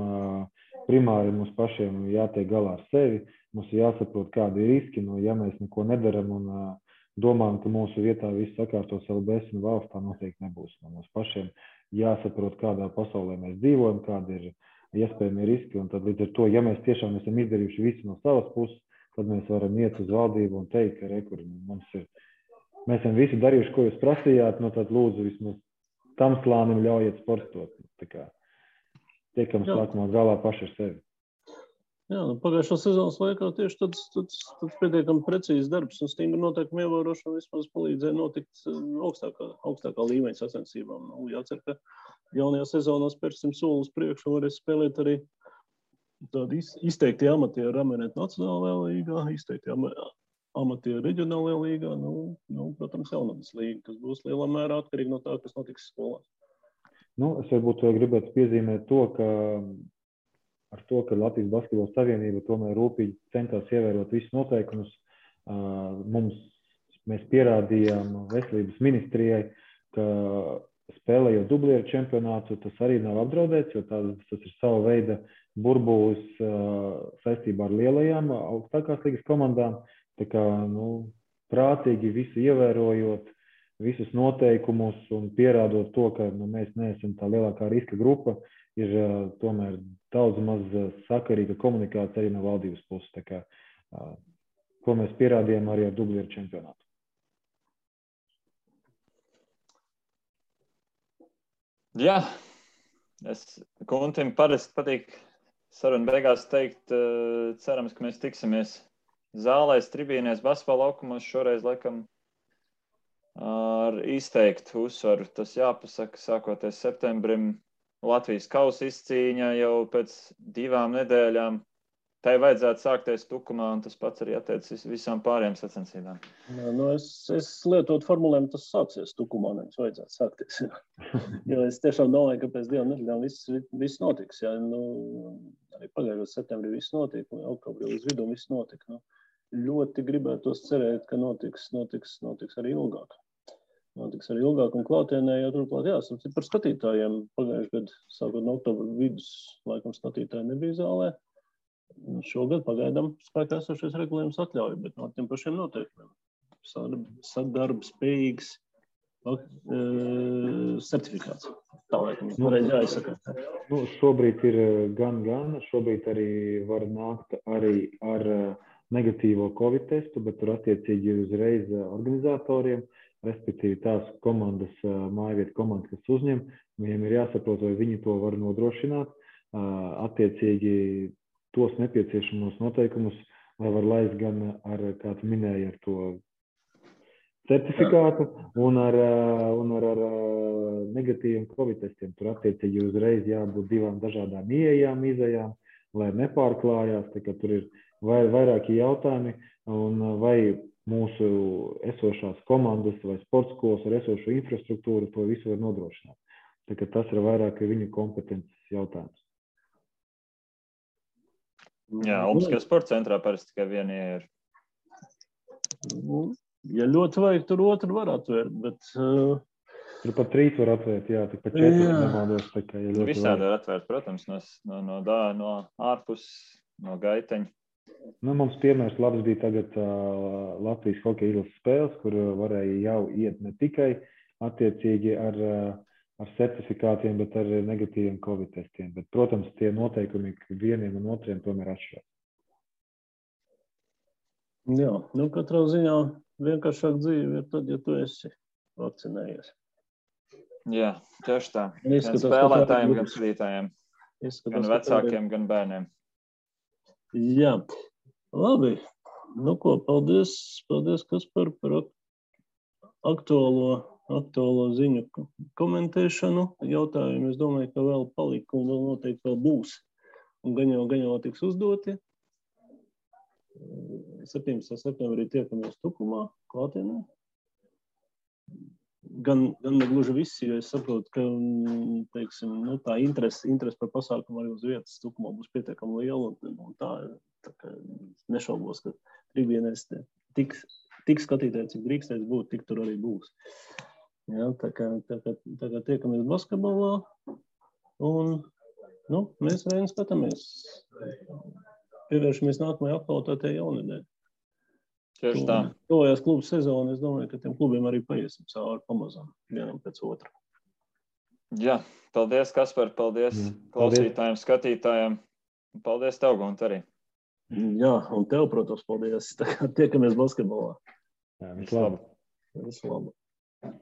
Speaker 3: Primāri mums pašiem jātiek galā ar sevi. Mums ir jāsaprot, kādi ir riski. Ja mēs neko nedaram un domājam, ka mūsu vietā viss sakārtos LBS un valsts, tā noteikti nebūs. Mums pašiem jāsaprot, kādā pasaulē mēs dzīvojam, kādi ir iespējami riski, un tad līdz ar to, ja mēs tiešām esam izdarījuši visu no savas puses, tad mēs varam iet uz valdību un teikt, ka mēs esam visi darījuši, ko jūs prasījāt, tad lūdzu vismaz tam slānim ļaujiet sportot. Tā kā tiekam sākumā galā paši ar sevi.
Speaker 2: Jā, pagājušā sezonas laikā tieši tāds pietiekami precīzs darbs un stingri noteikumi ievērošana vismaz palīdzēja notikt augstākā līmeņa sacensībām. Jācer, ka jaunajā sezonā spērsim soli uz priekšu un varēs spēlēt arī tādi izteikti amatieri Ramenet nacionālajā līgā, izteikti amatieri reģionālajā līgā, protams, jaunatnes līga, kas būs lielā mērā atkarīgi no tā, kas notiks skolās.
Speaker 3: Es varbūt gribētu piezīmēt to, ka Latvijas Basketbola Savienība tomēr rūpīgi centās ievērot visus noteikumus. Mēs pierādījām veselības ministrijai, ka spēlējot dublieru čempionātu, tas arī nav apdraudēts, jo tas ir sava veida burbulis saistībā ar lielajām augstākās līgas komandām. Tā kā, prātīgi visu ievērojot, visus noteikumus un pierādot to, ka mēs neesam tā lielākā riska grupa, ir tomēr daudz maz sakarīga komunikācija arī no valdības puses. Tā kā, ko mēs pierādījām arī ar dublieru čempionātu.
Speaker 1: Jā, Kuntim parasti patīk sarunu beigās teikt, cerams, ka mēs tiksimies zālēs, tribīnēs, basketbola laukumos, šoreiz laikam ar izteiktu uzsvaru. Tas jāpasaka, sākoties septembrim, Latvijas kausa izcīņa jau pēc 2 nedēļām. Tai vajadzētu sākties Tukumā, un tas pats arī attiecas visām pārējām sacensībām.
Speaker 2: Es lietotu formulējumu, tas sāksies Tukumā, nevis vajadzētu sākties. Jo es tiešām domāju, ka pēc 2 nedēļām viss notiks. Jā. Arī pagājušajā septembrī viss notika, un oktobrī līdz vidum viss notika. Ļoti gribētos cerēt, ka notiks arī ilgāk. Notiks arī ilgāk un klātienē, jo turklāt jāsaka par skatītājiem. Pagājušajā gadā, sākot no oktobra vidus, laikam skatītāji nebija zālē. Šogad pagaidām spēkā esošais regulējums atļauj, bet no tiem pašiem noteikumiem. Sadarba spējīgs certifikāts. Tā laikam, pareizi jāizsaka.
Speaker 3: Šobrīd ir gan. Šobrīd arī var nākt arī ar negatīvo Covid testu, bet tur attiecīgi uzreiz organizatoriem, respektīvi tās komandas, mājvietu komandas, kas uzņem, viņiem ir jāsaprot, vai viņi to var nodrošināt, attiecīgi tos nepieciešamos noteikumus, lai var laist gan ar, kā tu minēji, ar to certifikātu un ar negatīviem Covid testiem. Tur attiecīgi uzreiz jābūt divām dažādām ieejām, izejām, lai nepārklājās, tā kā tur ir vairāki jautājumi, un vai mūsu esošās komandas vai sporta skolas ar esošo infrastruktūru to visu var nodrošināt. Tā kā tas ir vairāk viņu kompetences jautājums.
Speaker 1: Jā, Olimpiskajā sporta centrā parasti tikai viena ir.
Speaker 2: Ja ļoti vajag, tur otru var atvērt, bet...
Speaker 3: Tur pat 3 var atvērt, jā, tik pat 4 nemaldos. Ja
Speaker 1: visādi var atvērt, protams, no ārpus, no gaiteņa.
Speaker 3: Mums piemērs labs bija tagad Latvijas hokeja izlases spēles, kur varēja jau iet ne tikai attiecīgi ar certifikātiem, bet ar negatīviem Covid testiem. Bet, protams, tie noteikumi vieniem un otriem tomēr atšķirās.
Speaker 2: Jā, katrā ziņā vienkāršāk dzīve ir tad, ja tu esi vakcinējies.
Speaker 1: Jā, tieši tā. Gan spēlētājiem, gan skatītājiem. Gan vecākiem, gan bērniem.
Speaker 2: Jā, labi. Paldies, Kaspar, par aktuālo ziņu komentēšanu. Jautājumu, es domāju, ka vēl palika un vēl noteikti vēl būs. Un gan jau tiks uzdoti. 17. septembrī tiekamies Tukumā, klātienē. Gan negluži visi, jo es saprotu, ka tā interese par pasākumu arī uz vietas Tukumā būs pietiekami liela. Un tā kā nešaubos, ka tribīnēs tik skatītāji, cik drīkstēs būt, tik tur arī būs. Jā, tā kā tiekamies basketbolā. Un mēs vien skatāmies. Pievēršamies nākamajai aktualitātei jaunedēļ.
Speaker 1: Tieši tā.
Speaker 2: Tuvojās klubu sezonu, es domāju, ka tiem klubiem arī paiesim cauri pamazām, vienam pēc otra.
Speaker 1: Jā, paldies, Kaspar, paldies klausītājiem, skatītājiem. Paldies tev, Gunta, arī.
Speaker 2: Jā, un tev, protams, paldies. Tiekamies basketbolā.
Speaker 3: Jā, visu labu.
Speaker 2: Visu labu.